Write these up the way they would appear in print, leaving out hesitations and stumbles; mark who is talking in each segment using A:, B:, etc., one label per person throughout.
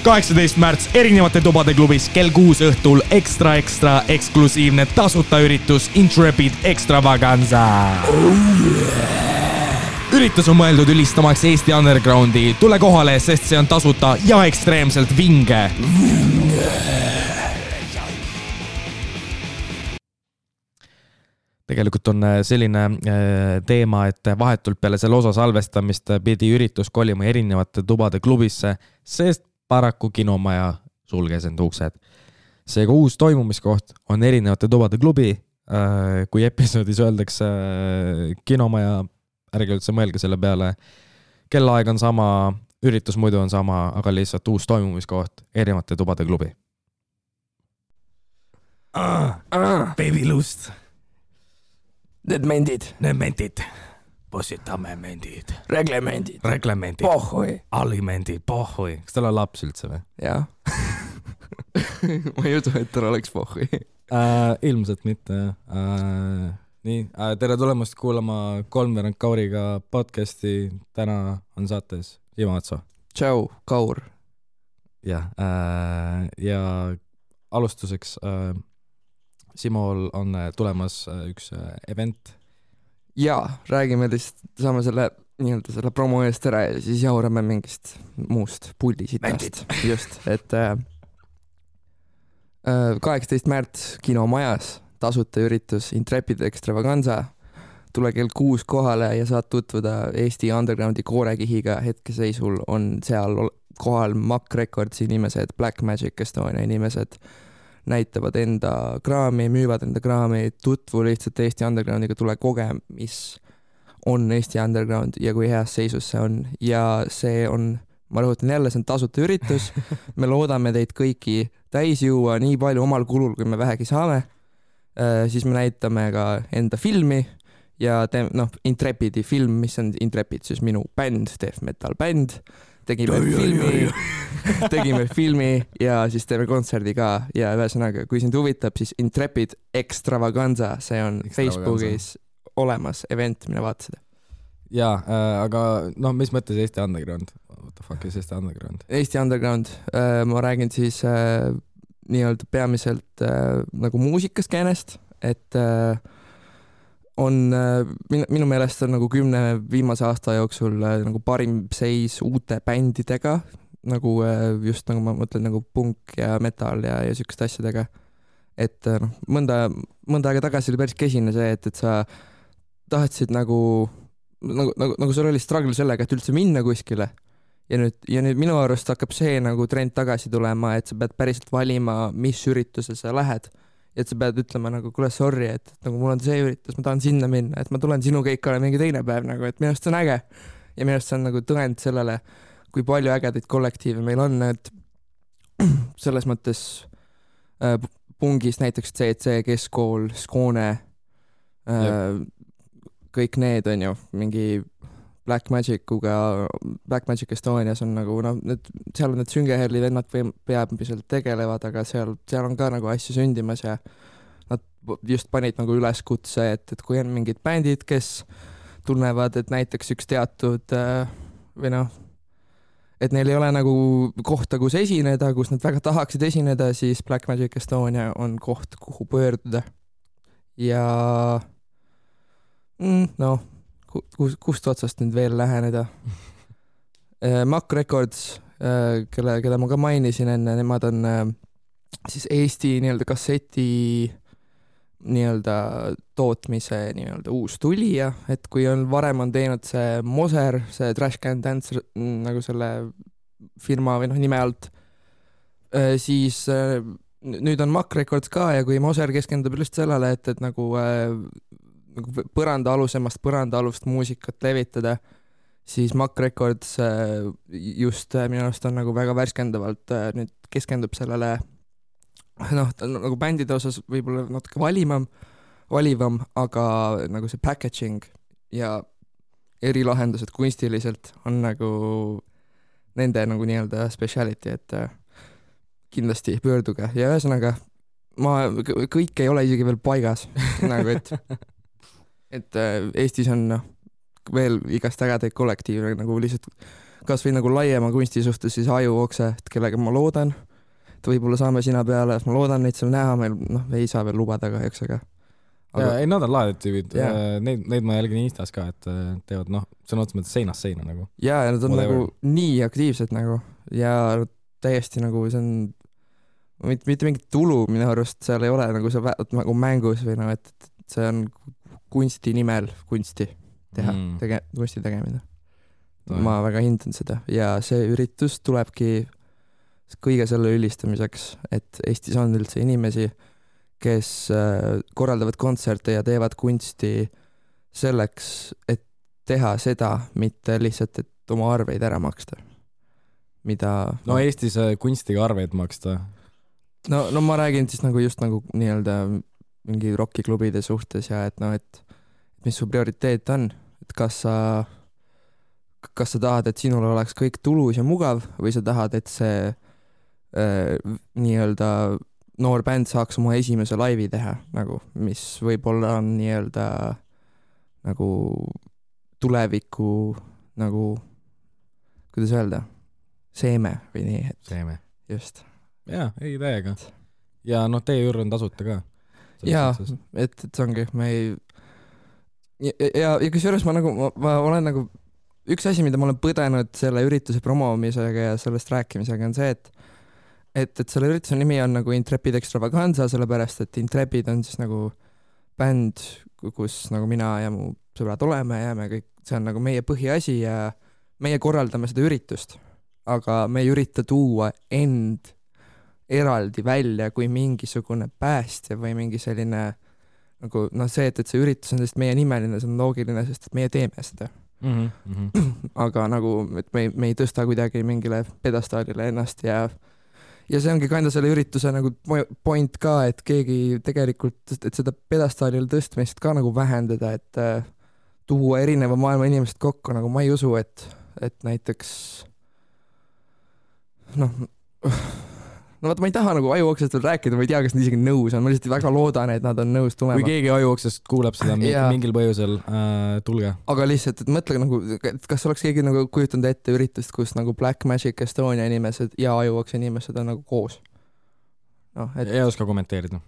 A: 18 märts erinevate tubade klubis kell 6 õhtul ekstra eksklusiivne tasuta üritus Intrepid Extravaganza. Üritus on mõeldud ülistamaks Eesti undergroundi. Tule kohale, sest see on tasuta ja ekstreemselt vinge. Tegelikult on selline teema, et vahetult peale selle osa salvestamist pidi üritus kolima erinevate tubade klubisse, sest paraku kinomaja sulges end uksed. Seega uus toimumiskoht on erinevate tubade klubi. Kui episoodis öeldakse kinomaja, ärge üldse mõelge selle peale. Kellaaeg on sama, üritus muidu on sama, aga lihtsalt uus toimumiskoht erinevate tubade klubi. Baby lust.
B: Need mendid.
A: Possitame mendid.
B: Reglemendid.
A: Pohhui. Alimendid. Pohhui. Kas tal on laps üldse või?
B: Jaa. Ma ei usu, et tal oleks pohhui.
A: Ilmselt mitte. Nii, tere tulemast kuulama Kolmveerand Kauriga podcasti. Täna on saates Ima Atso.
B: Tšau, Kaur.
A: Ja alustuseks Simol on tulemas üks event.
B: Jaa, räägime lihtsalt, saame selle promo eest ära ja siis jaurame mingist muust puldisitast. Just, et 18 märts kinomajas tasuta üritus Intrepid Extravaganza. Tule kell 6 kohale ja saad tutvuda Eesti undergroundi koorekihiga. Hetkeseisul on seal kohal Mack Recordsi inimesed, Black Magic Estonia inimesed, näitavad enda kraami, müüvad enda kraami, tutvu lihtsalt Eesti undergroundiga, tule koge, mis on Eesti underground ja kui heas seisus see on. Ja see on, ma rõhutan jälle, see on tasuta üritus. Me loodame teid kõiki täis juua nii palju omal kulul, kui me vähegi saame. Siis me näitame ka enda filmi ja Intrepidi film, mis on Intrepid, siis minu bänd, death metal bänd. Tegime filmi ja siis teeme kontserdi ka ja ühesõnaga, kui sind huvitab, siis Intrepid Extravaganza, see on Facebookis olemas event, mine vaata seda.
A: Jaa, aga mis mõttes Eesti underground? What the fuck is Eesti underground?
B: Eesti underground, ma räägin siis nii-öelda peamiselt nagu muusikaskäänest, et on minu meelest on nagu 10 viimase aasta jooksul nagu parim seis uute bändidega, nagu just nagu ma mõtlen nagu punk ja metal ja sükeste asjadega. Et mõnda aega tagasi oli päris kesine see, et sa tahtsid nagu sul oli struggle sellega, et üldse minna kuskile. Ja nüüd minu arust hakkab see nagu trend tagasi tulema, et sa pead päriselt valima, mis ürituse sa lähed. Et sa pead ütlema nagu, kuule, sorry, et nagu mul on see üritus, ma tahan sinna minna, et ma tulen sinu keikale mingi teine päev, nagu, et minu arust see on äge. Ja minu arust see on nagu tõend sellele, kui palju ägedaid kollektiive meil on, et selles mõttes pungis näiteks CC, Keskool, Skoone, kõik need on ju mingi Black Magic Estonias on nagu, seal on need Süngeherli vennad peamiselt tegelevad, aga seal on ka nagu asju sündimas ja nad just panid nagu üleskutse, et kui on mingid bändid, kes tunnevad, et näiteks üks teatud et neil ei ole nagu kohta, kus esineda, kus nad väga tahaksid esineda, siis Black Magic Estonia on koht, kuhu pöörduda. Ja kust otsast nüüd veel läheneda. Mack Records, keda ma ka mainisin enne, nemad on siis Eesti nii-öelda kasseti nii-öelda tootmise nii-öelda uus tulija, et kui varem on teinud see Moser, see Trash Can Dance nagu selle firma või nime alt, siis nüüd on Mack Records ka ja kui Moser keskendub just sellele, et nagu põrandaalust muusikat levitada, siis Mack Records just minu arust on nagu väga värskendavalt nüüd keskendub sellele nagu bändide osas võib-olla natuke valivam, aga nagu see packaging ja erilahendused kunstiliselt on nagu nende nagu nii-öelda speciality, et kindlasti pöörduge ja ühesõnaga kõik ei ole isegi veel paigas nagu, et Eestis on veel igast ägedaid kollektiive nagu lihtsalt kas või nagu laiema kunsti suhtes siis Ajuokse, kellega ma loodan, et võib-olla saame sina peale, ma loodan neid seal näha, meil ei saa veel lubada kahjuks, aga
A: ei, nad on lahedad tüübid, neid ma jälgin Instas ka, et teevad sõna otseses mõttes seinast seina nagu.
B: Ja nad on nagu nii aktiivsed nagu ja täiesti nagu see on mitte mingit tulu minu arust seal ei ole nagu see nagu mängus või et see on kunsti nimel kunsti teha, kunsti tegemine. Ma väga hindan seda ja see üritus tulebki kõige selle ülistamiseks, et Eestis on üldse inimesi, kes korraldavad kontserte ja teevad kunsti selleks, et teha seda, mitte lihtsalt, et oma arveid ära maksta. Mida...
A: No Eestis kunstiga arveid maksta.
B: No ma räägin siis nagu just nagu nii-öelda mingi rockiklubide suhtes ja et et mis su prioriteet on, et kas sa tahad, et sinul oleks kõik tulus ja mugav või sa tahad, et see nii-öelda noor bänd saaks oma esimese laivi teha, nagu, mis võib-olla on nii-öelda nagu tuleviku nagu, kuidas öelda, seeme või nii.
A: Seeme.
B: Just.
A: Jaa, ei täiega. Ja teie juurde on tasuta ka.
B: Jaa, et see ongi, me ei... Ja kusjuures ma olen nagu üks asi, mida ma olen põdenud selle ürituse promomisega ja sellest rääkimisega on see, et selle ürituse nimi on nagu Intrepid Extravaganza, sellepärast, et Intrepid on siis nagu bänd, kus nagu mina ja mu sõbrad oleme ja me kõik, see on nagu meie põhiasi ja meie korraldame seda üritust, aga me ei ürita tuua end eraldi välja kui mingisugune päästja või mingi selline nagu see, et see üritus on lihtsalt meie nimeline, see on loogiline, sest et meie teeme seda. Aga nagu, et me ei tõsta kuidagi mingile pedestaalile ennast ja see ongi kanda selle ürituse nagu point ka, et keegi tegelikult, et seda pedestaalile tõstmist ka nagu vähendada, et tuua erineva maailma inimesed kokku, nagu ma ei usu, et näiteks vaata, ma ei taha nagu Ajuoksest veel rääkida, ma ei tea, kas nad isegi nõus on, ma lihtsalt väga loodan, et nad on nõus tulema.
A: Kui keegi Ajuoksest kuuleb seda mingil põhjusel, tulge.
B: Aga lihtsalt, et mõtle nagu, kas oleks keegi nagu kujutanud ette üritust, kus nagu Black Magic Estonia inimesed ja Ajuokse inimesed on nagu koos?
A: Ei oska kommenteerida.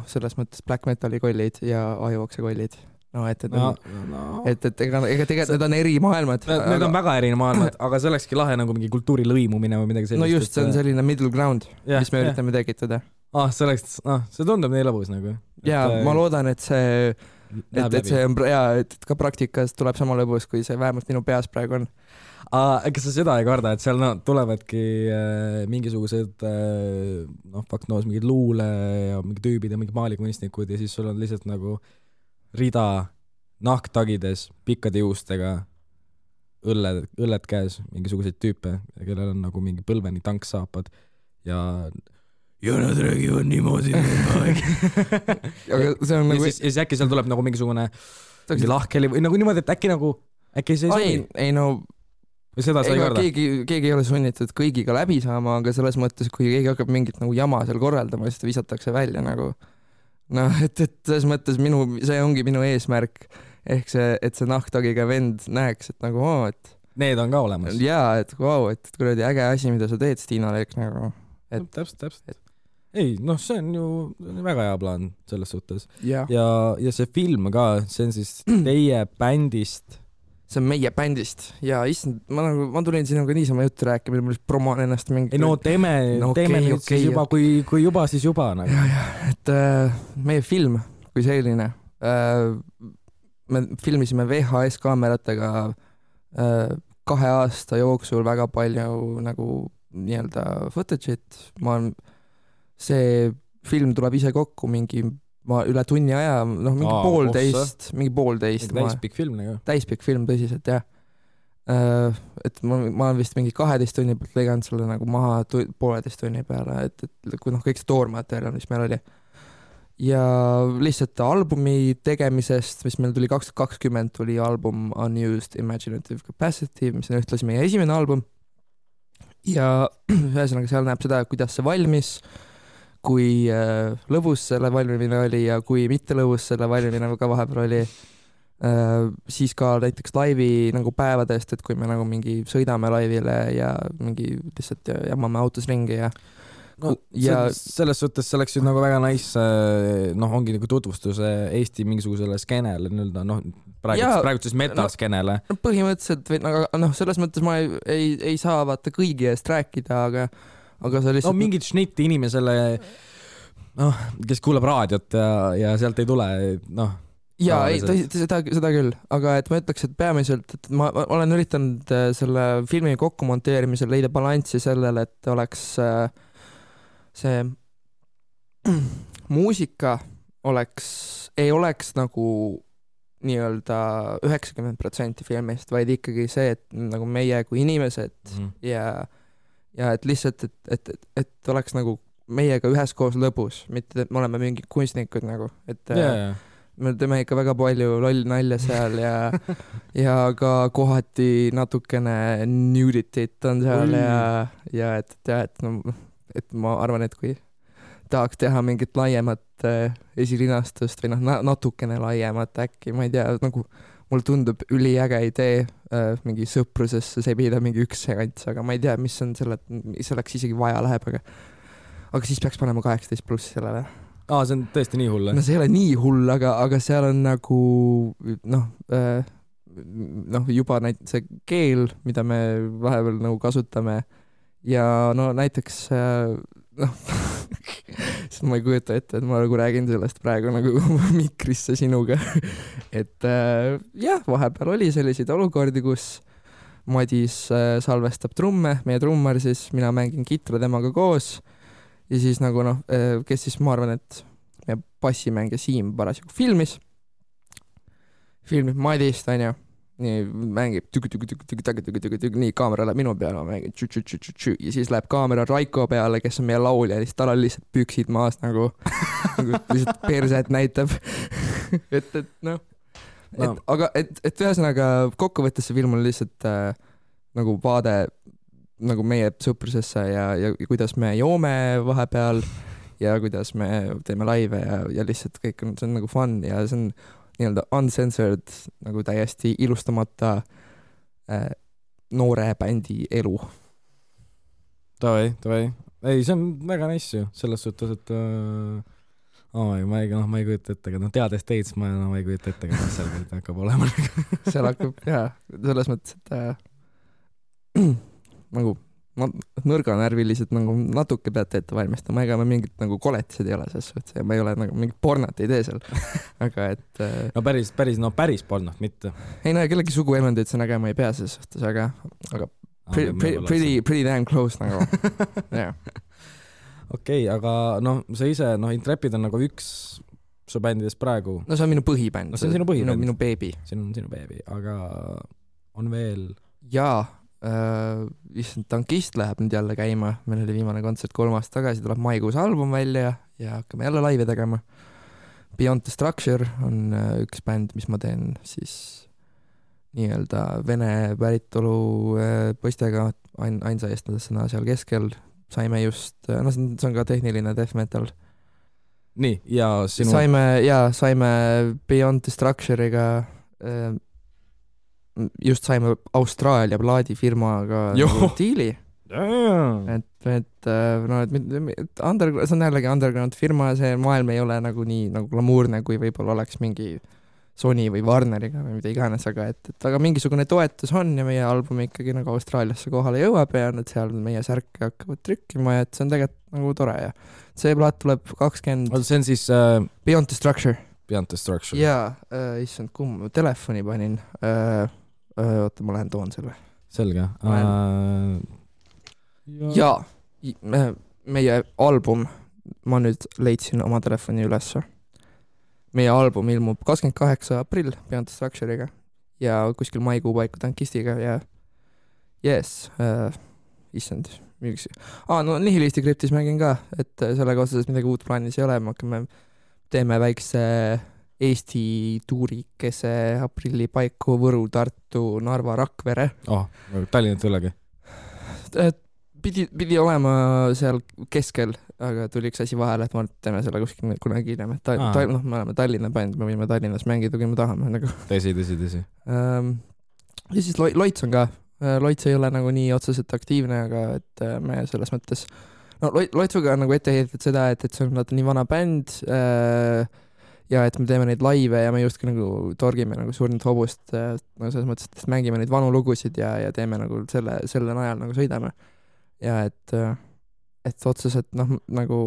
B: Selles mõttes Black Metali kollid ja Ajuokse kollid. Et ega tegelikult need on eri maailmad.
A: Need on väga eri maailmad, aga see olekski lahe nagu mingi kultuuri lõimumine või midagi sellist.
B: No just, see on selline middle ground, mis me üritame tekitada.
A: See tundub nii lõbus nagu.
B: Ja ma loodan, et see on et ka praktikas tuleb sama lõbus, kui see vähemalt minu peas praegu on.
A: Kas sa seda ei karda, et seal tulevadki mingisugused mingid luule ja mingi tüübid ja mingi maalikunstnikud ja siis sul on lihtsalt nagu rida nahktagides, pikkade juustega, õlled käes, mingisuguseid tüüpe, kellel on nagu mingi põlveni tanksaapad ja nad räägivad niimoodi.
B: Aga see on nagu...
A: Ja siis äkki seal tuleb nagu mingisugune lahkeli või nagu niimoodi, et äkki see ei sobi?
B: Ei
A: või seda sa ei karda?
B: Keegi ei ole sunnitud kõigiga läbi saama, aga selles mõttes, kui keegi hakkab mingit nagu jama seal korraldama, siis ta visatakse välja nagu et selles mõttes see ongi minu eesmärk ehk see, et see nahktagiga vend näeks, et nagu et
A: need on ka olemas.
B: Jaa, et et kuradi äge asi, mida sa teed, Stiina Leek nagu.
A: Täpselt. Ei, see on ju väga hea plaan selles suhtes.
B: Ja
A: see film ka, see on siis teie bändist.
B: See on meie bändist ja issand, ma tulin sinuga niisama juttu rääkima, ma lihtsalt promoon ennast mingi...
A: Ei teeme nüüd siis juba, kui juba, siis juba nagu.
B: Ja, et meie film kui selline, me filmisime VHS kaameratega 2 aasta jooksul väga palju nagu nii-öelda footage'it, see film tuleb ise kokku mingi üle tunni aja, mingi poolteist.
A: Täispikk film nagu.
B: Täispikk film, tõsiselt, jah. Et ma olen vist mingi 12 tunni pealt lõiganud selle nagu maha 1,5 tunni peale, et kui kõik see toormaterjal, mis meil oli. Ja lihtsalt albumi tegemisest, mis meil tuli 2020, tuli album Unused Imaginative Capacity, mis on ühtlasi meie esimene album. Ja ühesõnaga seal näeb seda, kuidas see valmis, kui lõbus selle valmimine oli ja kui mitte lõbus selle valmimine ka vahepeal oli. siis ka näiteks laivi nagu päevadest, et kui me nagu mingi sõidame laivile ja mingi lihtsalt jamame autos ringi ja
A: no, selles suhtes see oleks ju nagu väga nice, noh, ongi nagu tutvustus Eesti mingisugusele skeenele nii-öelda, noh, praegu siis metal-skeenele.
B: No, põhimõtteliselt, noh, selles mõttes ma ei saa vaata kõigi eest rääkida, aga sa lihtsalt...
A: No mingit šnitti inimesele, noh, kes kuulab raadiot ja sealt ei tule, noh...
B: Jaa, seda küll, aga et ma ütleks, et peamiselt, et ma olen üritanud selle filmi kokku monteerimisel leida balanssi sellele, et oleks see muusika ei oleks nagu nii-öelda 90% filmist, vaid ikkagi see, et nagu meie kui inimesed ja et lihtsalt, et oleks nagu meiega üheskoos lõbus, mitte et me oleme mingid kunstnikud nagu, et me teeme ikka väga palju loll nalja seal ja ka kohati natukene nudity't on seal ja et ma arvan, et kui tahaks teha mingit laiemat esilinastust või noh, natukene laiemat äkki, ma ei tea, nagu mul tundub üliäge idee mingi sõprusesse sebida mingi üks sekants, aga ma ei tea, mis on selleks isegi vaja läheb, aga siis peaks panema 18+ sellele.
A: See on tõesti nii hull?
B: No see ei ole nii hull, aga seal on nagu juba see keel, mida me vahepeal nagu kasutame ja no näiteks ma ei kujuta ette, et ma nagu räägin sellest praegu nagu mikrisse sinuga et jah, vahepeal oli selliseid olukordi, kus Madis salvestab trumme, meie trummar siis, mina mängin kitra temaga koos ja siis nagu noh, kes siis ma arvan, et meie bassimängija Siim parasjagu filmib Madist, on ju, nii mängib nii kaamera läheb minu peale, ma mängin ja siis läheb kaamera Raiko peale, kes on meie laulja ja siis tal on lihtsalt püksid maas nagu lihtsalt perset näitab et noh, aga et ühesõnaga kokkuvõttes see film on lihtsalt nagu vaade nagu meie sõprusesse ja kuidas me joome vahepeal ja kuidas me teeme laive ja lihtsalt kõik on, see on nagu fun ja see on nii-öelda uncensored, nagu täiesti ilustamata noore bändi elu.
A: Tavai. Ei, see on väga nice ju, selles suhtes, et ma ei kujuta ette, aga teades teid, ma ei kujuta ette, kas seal hakkab olema.
B: Seal hakkab, jaa, selles mõttes, et nagu nõrganärvilised nagu natuke peate ette valmistama, ega me mingit nagu koletised ei ole selles suhtes ja ma ei ole nagu mingit pornot ei tee seal, aga et
A: no päris pornot mitte.
B: Ei no kellegi suguelundid see nägema ei pea selles suhtes, aga pretty damn close nagu yeah.
A: Okei, aga noh, sa ise, Intrepid on nagu üks su bändidest praegu.
B: No see on minu põhibänd.
A: No see on sinu põhibänd.
B: Minu beebi.
A: See on sinu beebi, aga on veel...
B: Jaa, Tankist läheb nüüd jälle käima, meil oli viimane kontsert 3 aastat tagasi, tuleb maikuus album välja ja hakkame jälle laive tegema. Beyond the Structure on üks bänd, mis ma teen siis nii-öelda vene päritolu poistega ainsa eestlasena seal keskel. Saime just, see on ka tehniline death metal.
A: Nii, ja sinu...
B: Saime Beyond the Structure'iga just saime Austraalia plaadifirmaga diili. Et see on jällegi underground firma, see maailm ei ole nagu nii nagu glamuurne, kui võib-olla oleks mingi Sony või Warneriga või mida iganes, aga mingisugune toetus on ja meie album ikkagi nagu Austraaliasse kohale jõuab ja nad seal meie särke hakkavad trükkima ja et see on tegelikult nagu tore ja see plaat tuleb 20...
A: See on siis...
B: Beyond the Structure.
A: Beyond the Structure.
B: Jaa, issand, kumma telefoni panin. Oota, ma lähen toon selle.
A: Selge.
B: Jaa, meie album, ma nüüd leidsin oma telefoni ülesse. Meie album ilmub 28. aprill Beyond the Structure'iga ja kuskil maikuu paiku Tankistiga ja yes, issand, miks... no Nihilisti Kryptis mängin ka, et sellega otseselt midagi uut plaanis ei ole, me teeme väikse Eesti tuurikese aprilli paiku Võru, Tartu, Narva, Rakvere.
A: Tallinnat ülegi?
B: Pidi olema seal keskel, aga tuli üks asi vahele, et ma teeme selle kuskil kunagi hiljem, et me oleme Tallinna bänd, me võime Tallinnas mängida, kui me tahame nagu.
A: Tõsi.
B: Ja siis Loits on ka, Loits ei ole nagu nii otseselt aktiivne, aga et me selles mõttes, no Loitsuga on nagu ette heidetud seda, et see on nii vana bänd ja et me teeme neid laive ja me justkui nagu torgime nagu surnud hobust, no selles mõttes, et mängime neid vanu lugusid ja teeme nagu selle najal nagu sõidame. Ja et otseselt nagu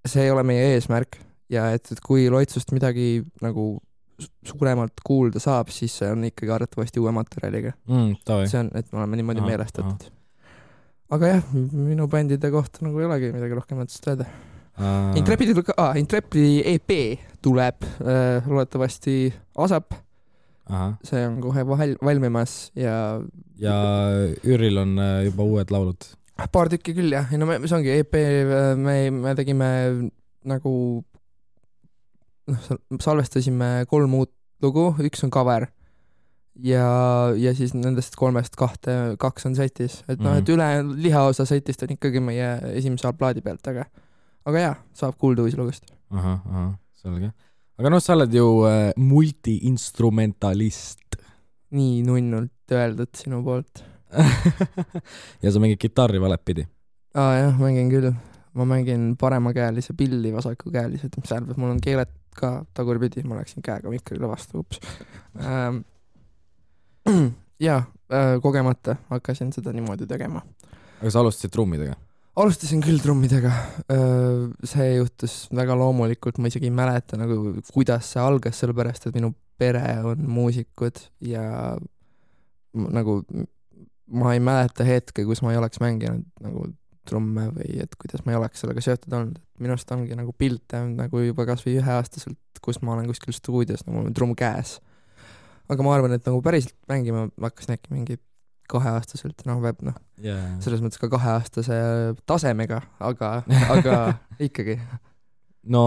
B: see ei ole meie eesmärk ja et kui Loitsust midagi nagu suuremalt kuulda saab, siis see on ikkagi arvatavasti uue materjaliga. See on, et me oleme niimoodi meelestatud. Aga jah, minu bändide kohta nagu ei olegi midagi rohkem mõttest öelda. Intrepidi EP tuleb loodetavasti ASAP. See on kohe valmimas ja
A: Üril on juba uued laulud.
B: Paar tükki küll jah, no see ongi EP, me tegime nagu salvestasime 3 uut lugu, üks on cover ja siis nendest 3-st 2 on setis, et et üle lihaosa setist on ikkagi meie esimese plaadi pealt, aga jah, saab kuulda uusi lugust.
A: Selge. Aga sa oled ju multi-instrumentalist.
B: Nii nunnult öeldud sinu poolt.
A: Ja sa mängid kitarri valepidi?
B: Jah, mängin küll. Ma mängin paremakäelise pilli, vasakukäelise, mis tähendab, mul on keeled ka tagurpidi, ma läksin käega mikrile vastu, ups. Kogemata hakkasin seda niimoodi tegema.
A: Aga sa alustasid trummidega?
B: Alustasin küll trummidega. See juhtus väga loomulikult, ma isegi ei mäleta, nagu, kuidas see algas, sellepärast, et minu pere on muusikud ja nagu ma ei mäleta hetke, kus ma ei oleks mänginud nagu trumme või et kuidas ma ei oleks sellega seotud olnud. Minust ongi nagu pilte nagu juba kas või 1-aastaselt, kus ma olen kuskil stuudios, nagu mul on trumm käes. Aga ma arvan, et nagu päriselt mängima hakkasin äkki mingi 2-aastaselt, selles mõttes ka 2-aastase tasemega, aga ikkagi.
A: No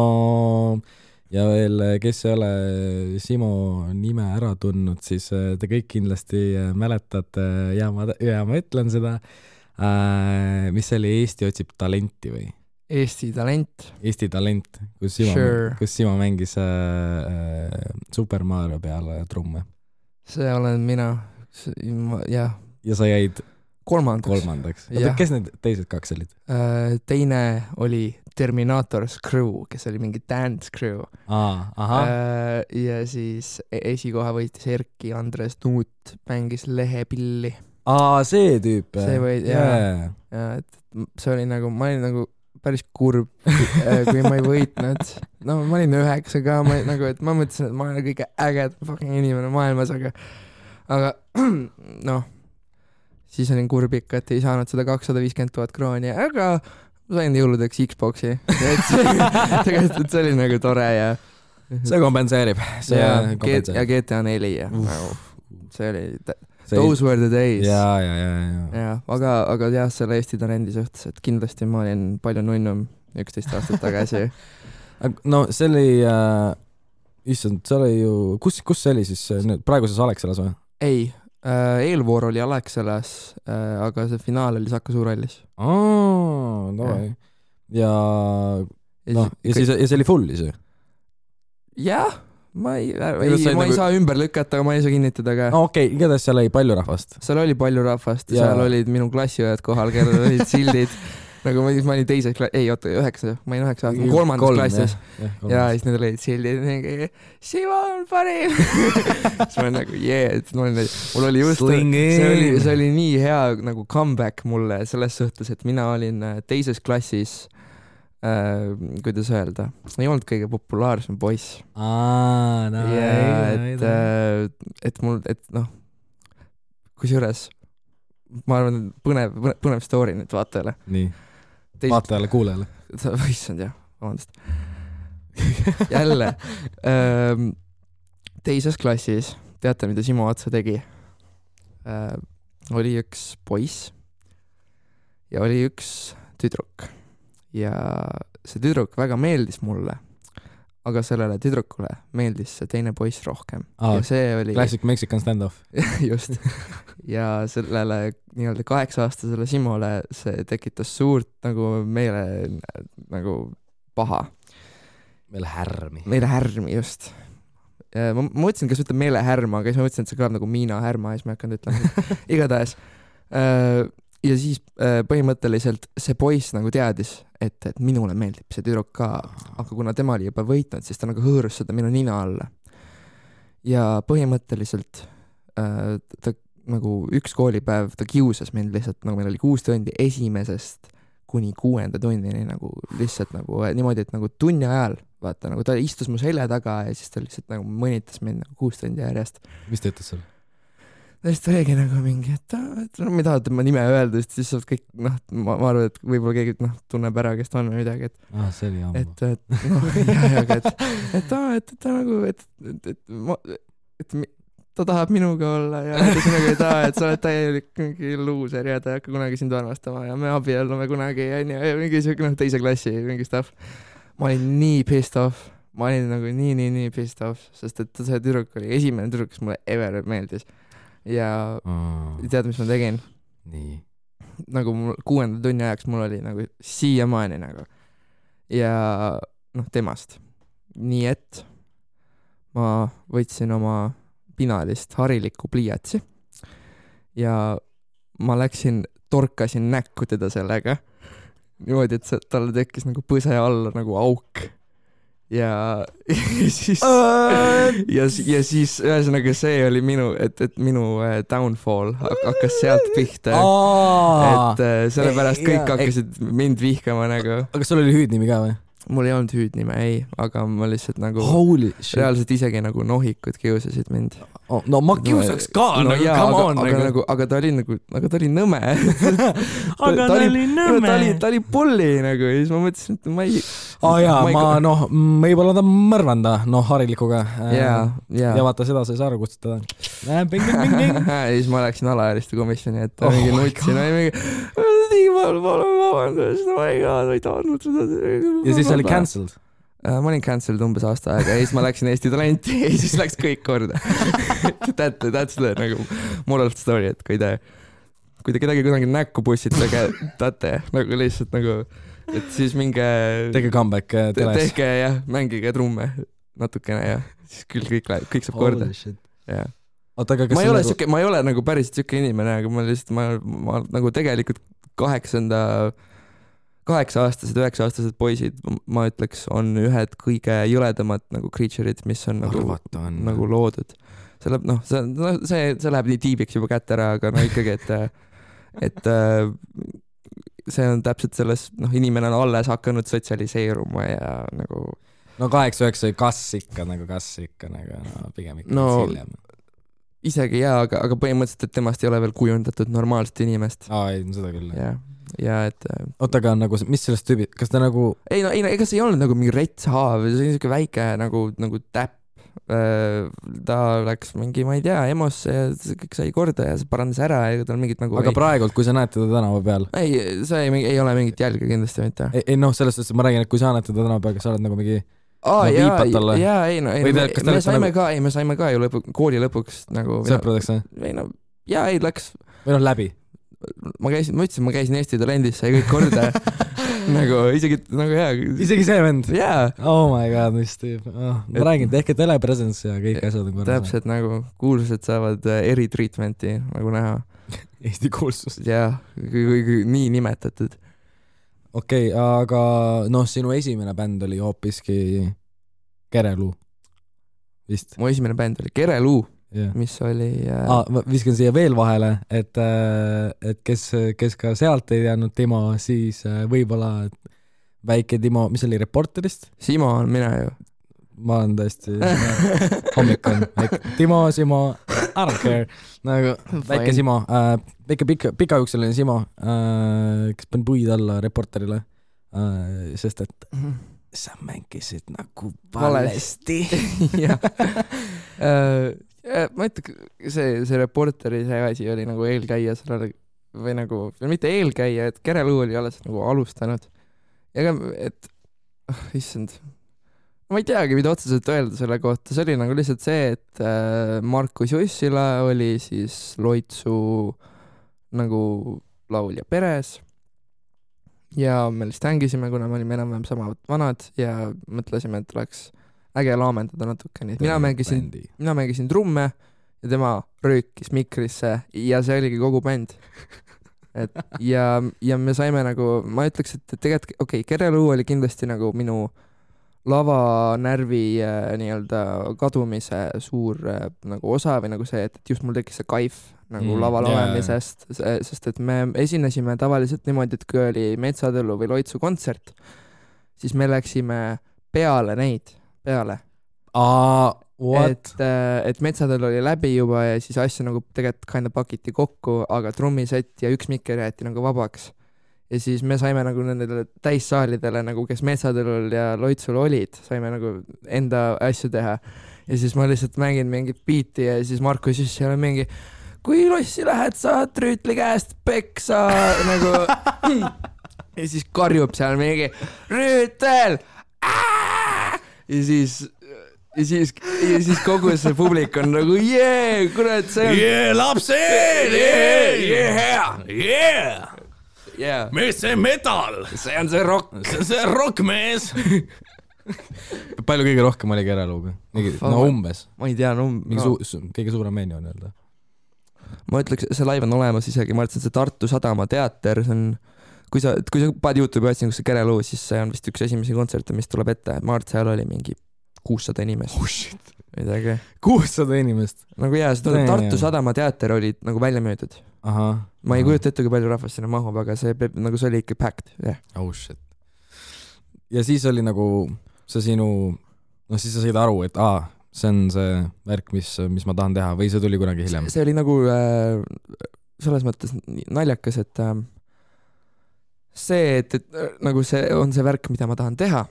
A: ja veel, kes ei ole Simo nime ära tundnud, siis te kõik kindlasti mäletate ja ma ütlen seda, mis oli Eesti otsib talenti või?
B: Eesti talent,
A: kus Simo mängis Super Mario peale trumme. See
B: olen mina, jah.
A: Ja sa jäid
B: kolmandaks.
A: Kes need teised 2 olid?
B: Teine oli Terminator's Crew, kes oli mingi dance crew. Ja siis esikoha võitis Erki Andres Nuut, mängis lehepilli.
A: See tüüp.
B: See oli nagu, ma olin nagu päris kurb, kui ma ei võitnud. No ma olin 9 ka, et ma mõtlesin, et ma olen kõige äged fucking inimene maailmas, aga siis olin kurb ikka, et ei saanud seda 250,000 krooni, aga ma sain jõuludeks Xboxi. Tegelikult see oli nagu tore ja
A: see kompenseerib.
B: Ja GTA 4 ja see oli those were the days.
A: Ja.
B: Aga jah, selle Eesti talendi suhtes, et kindlasti ma olin palju nunnum 11 aastat tagasi.
A: No see oli, issand, see oli ju, kus see oli siis praeguses Alexelas või?
B: Ei, eelvoor oli Alexelas, aga see finaal oli Saku Suurhallis.
A: Ja see oli full ise?
B: Jah, ma ei saa ümber lükata, aga ma ei saa kinnitada ka.
A: Okei, igatahes seal oli palju rahvast?
B: Seal oli palju rahvast ja seal olid minu klassiõed kohal, kellel olid sildid. Nagu ma olin teises klassis, 9, ma olin 9 aastat, 3. klassis. Ja siis need olid sildid, Simo on parim. Siis ma olin nagu, mul oli just, see oli nii hea nagu comeback mulle selles suhtes, et mina olin teises klassis, kuidas öelda, ei olnud kõige populaarsem poiss. Kusjuures ma arvan, põnev story nüüd vaatajale.
A: Nii, vaatajale, kuulajale.
B: Issand jah, vabandust. Jälle, teises klassis, teate, mida Simo Atsa tegi? Oli üks poiss ja oli üks tüdruk. Ja see tüdruk väga meeldis mulle, aga sellele tüdrukule meeldis see teine poiss rohkem ja see oli
A: classic Mexican standoff.
B: just ja sellele nii-öelda 8-aastasele Simole see tekitas suurt nagu meile nagu paha.
A: Meile
B: härmi, just. Ma mõtlesin, kas ütleb meile härma, aga siis ma mõtlesin, et see kõlab nagu Miina härma ja siis ma hakanud ütlema. Igatahes. Ja siis põhimõtteliselt see poiss nagu teadis, et minule meeldib see tüdruk ka, aga kuna tema oli juba võitnud, siis ta nagu hõõrus seda minu nina alla. Ja põhimõtteliselt ta nagu üks koolipäev, ta kiusas mind lihtsalt, nagu meil oli 6 tundi esimesest kuni 6. tunnini nagu lihtsalt nagu niimoodi, et nagu tunni ajal, vaata, nagu ta istus mu selja taga ja siis ta lihtsalt nagu mõnitas mind nagu 6 tundi järjest.
A: Mis ta ütles seal?
B: Siis ta oligi nagu mingi, et ma tahad ma nime öelda, siis saab kõik, ma arvan, et võib-olla keegi tunneb ära, kes ta on või midagi, et
A: see oli ammu.
B: Et ta nagu, et ta tahab minuga olla ja siis nagu, et sa oled täielik mingi luuser ja ta ei hakka kunagi sind armastama ja me abiellume kunagi ja mingi teise klassi mingi stuff. Ma olin nii pissed off, ma olin nagu nii pissed off, sest et see tüdruk oli esimene tüdruk, kes mulle ever meeldis ja tead, mis ma tegin?
A: Nii.
B: Nagu 6. tunni ajaks mul oli nagu siiamaani nagu ja temast. Nii et ma võtsin oma pinalist harilikku pliiatsi ja ma torkasin näkku teda sellega niimoodi, et talle tekkis nagu põse alla nagu auk ja siis ja siis ühesõnaga see oli minu, et minu downfall hakkas sealt pihta, et sellepärast kõik hakkasid mind vihkama nagu.
A: Aga sul oli hüüdnimi ka või?
B: Mul ei olnud hüüdnime, ei, aga ma lihtsalt nagu reaalselt isegi nagu nohikud kiusasid mind.
A: No ma kiusaks ka,
B: aga ta oli nõme. Ta oli pulli nagu ja siis ma mõtlesin, et ma ei... võib-olla ta mõrvanda, harilikuga. Ja vaata seda sa ei saa aru kutsutada. Ja siis ma läksin alaealiste komisjoni, et mingi nutsin, vabandust, ma ei tahtnud seda.
A: Ja siis oli cancelled?
B: Ma olin cancelled umbes aasta aega ja siis ma läksin Eesti Talenti ja siis läks kõik korda. That's the nagu moral of the story, et kui te kedagi kunagi näkku pussitage, tate nagu lihtsalt nagu, et siis minge...
A: Tege comeback teles.
B: Tehke jah, mängige trumme natukene ja siis küll kõik saab korda. Ja. Ma ei ole nagu päris siuke inimene, aga ma lihtsalt, ma nagu tegelikult 8-aastased, 9-aastased poisid, ma ütleks, on ühed kõige jõledamad nagu creature'id, mis on nagu loodud. See läheb nii tiibiks juba kätte ära, aga ikkagi, et see on täpselt selles, inimene on alles hakanud sotsialiseeruma ja nagu...
A: 8-9 kas ikka pigem ikka hiljem.
B: Isegi jaa, aga põhimõtteliselt, et temast ei ole veel kujundatud normaalset inimest.
A: Ei, seda küll.
B: Ja et...
A: Oota, aga nagu, mis sellest tüübid, kas ta nagu...
B: Ei, ega see ei olnud nagu mingi retshaav, see oli niisugune väike nagu täpp. Ta läks mingi, ma ei tea, emosse ja kõik sai korda ja see parandas ära ja tal mingit nagu...
A: Aga praegult, kui sa näed teda tänava peal?
B: Ei, see ei ole mingit jälge kindlasti mitte.
A: Ei, selles suhtes, ma räägin, et kui sa näed teda tänava peal, kas sa oled nagu mingi... me saime ka ju kooli lõpuks nagu... Sõpradeks,
B: või? Läks...
A: Või läbi?
B: Ma käisin Eesti Talendisse ja kõik korda nagu isegi nagu hea.
A: Isegi see vend?
B: Jaa.
A: Oh my god, mis tüüp. Ma räägin, tehke telepresence ja kõik asjad on korras.
B: Täpselt nagu kuulsused saavad eritreatmenti nagu näha.
A: Eesti kuulsus.
B: Jaa, nii nimetatud.
A: Okei, aga sinu esimene bänd oli hoopiski Kereluu vist?
B: Mu esimene bänd oli Kereluu. Mis oli...
A: Ma viskan siia veel vahele, et kes ka sealt ei teadnud Timo, siis võib-olla väike Timo, mis oli Reporterist?
B: Simo on mina ju.
A: Ma olen tõesti hommik on. Timo, Simo, I don't care. Nagu väike Simo, väike pikajuukseline Simo, kes pani puid alla Reporterile, sest et sa mängisid nagu valesti.
B: Ma ütlen, see Reporteri see asi oli nagu eelkäija sellele või nagu, mitte eelkäija, et Kereluu oli alles nagu alustanud. Ega, et issand, ma ei teagi, mida otseselt öelda selle kohta, see oli nagu lihtsalt see, et Markus Jussila oli siis Loitsu nagu laulja peres ja me lihtsalt hängisime, kuna me olime enam-vähem sama vanad ja mõtlesime, et oleks äge laamendada natukene. Mina mängisin trumme ja tema röökis mikrisse ja see oligi kogu bänd. Ja me saime nagu, ma ütleks, et tegelikult Kereluu oli kindlasti nagu minu lavanärvi nii-öelda kadumise suur nagu osa või nagu see, et just mul tekkis see kaif nagu laval olemisest, sest et me esinesime tavaliselt niimoodi, et kui oli Metsatõllu või Loitsu kontsert, siis me läksime peale neid. Et Metsatõllu oli läbi juba ja siis asju nagu tegelikult kinda pakiti kokku, aga trummisett ja üks mikker jäeti nagu vabaks. Ja siis me saime nagu nendele täissaalidele, nagu kes Metsatõllul ja Loitsul olid, saime nagu enda asju teha. Ja siis ma lihtsalt mängin mingit biiti ja siis Markus just seal mingi, kui lossi lähed, saad Rüütli käest peksa nagu. Ja siis karjub seal mingi Rüütel! Ja siis kogu see publik on nagu kurat, see on
C: lapsed! Mees, see metal!
B: See on see rock!
C: See on see rockmees!
A: Palju kõige rohkem oli Kereluuga? No umbes.
B: Ma ei tea,
A: kõige suurem menu on öelda.
B: Ma ütleks, see live on olemas isegi, ma ütlesin, see Tartu Sadama teater, see on, kui sa paned YouTube'i otsin, kus see Kereluu, siis see on vist üks esimesi kontserte, mis tuleb ette. Ma arvan, et seal oli mingi 600 inimest.
A: Oh shit.
B: Midagi.
A: 600 inimest?
B: Nagu see Tartu Sadama teater oli nagu välja müüdud. Ma ei kujuta ette, kui palju rahvast sinna mahub, aga see oli ikka packed.
A: Oh shit. Ja siis oli nagu see sinu, siis sa said aru, et see on see värk, mis ma tahan teha või see tuli kunagi hiljem?
B: See oli nagu selles mõttes naljakas, et see, et nagu see on see värk, mida ma tahan teha,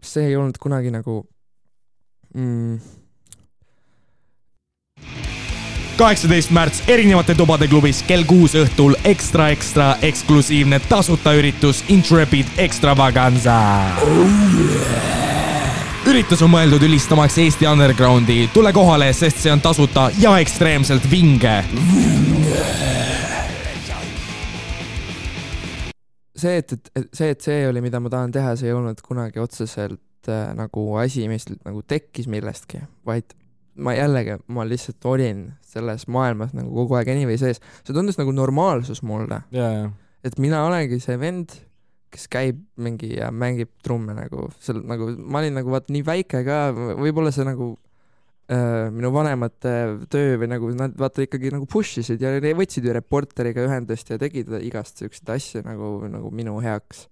B: see ei olnud kunagi nagu
A: 18. märts erinevate tubade klubis kell 6 õhtul ekstra eksklusiivne tasuta üritus Intrepid Extravaganza. Üritus on mõeldud ülistamaks Eesti undergroundi. Tule kohale, sest see on tasuta ja ekstreemselt vinge.
B: See, et see oli, mida ma tahan teha, see ei olnud kunagi otseselt nagu asi, mis nagu tekkis millestki, vaid ma lihtsalt olin selles maailmas nagu kogu aeg anyway sees. See tundus nagu normaalsus mulle. Et mina olengi see vend, kes käib mingi ja mängib trumme nagu, nagu ma olin nagu nii väike ka, võib-olla see nagu minu vanemate töö või nagu nad ikkagi nagu pushisid ja võtsid ju reporteriga ühendust ja tegid igast selliseid asju nagu minu heaks.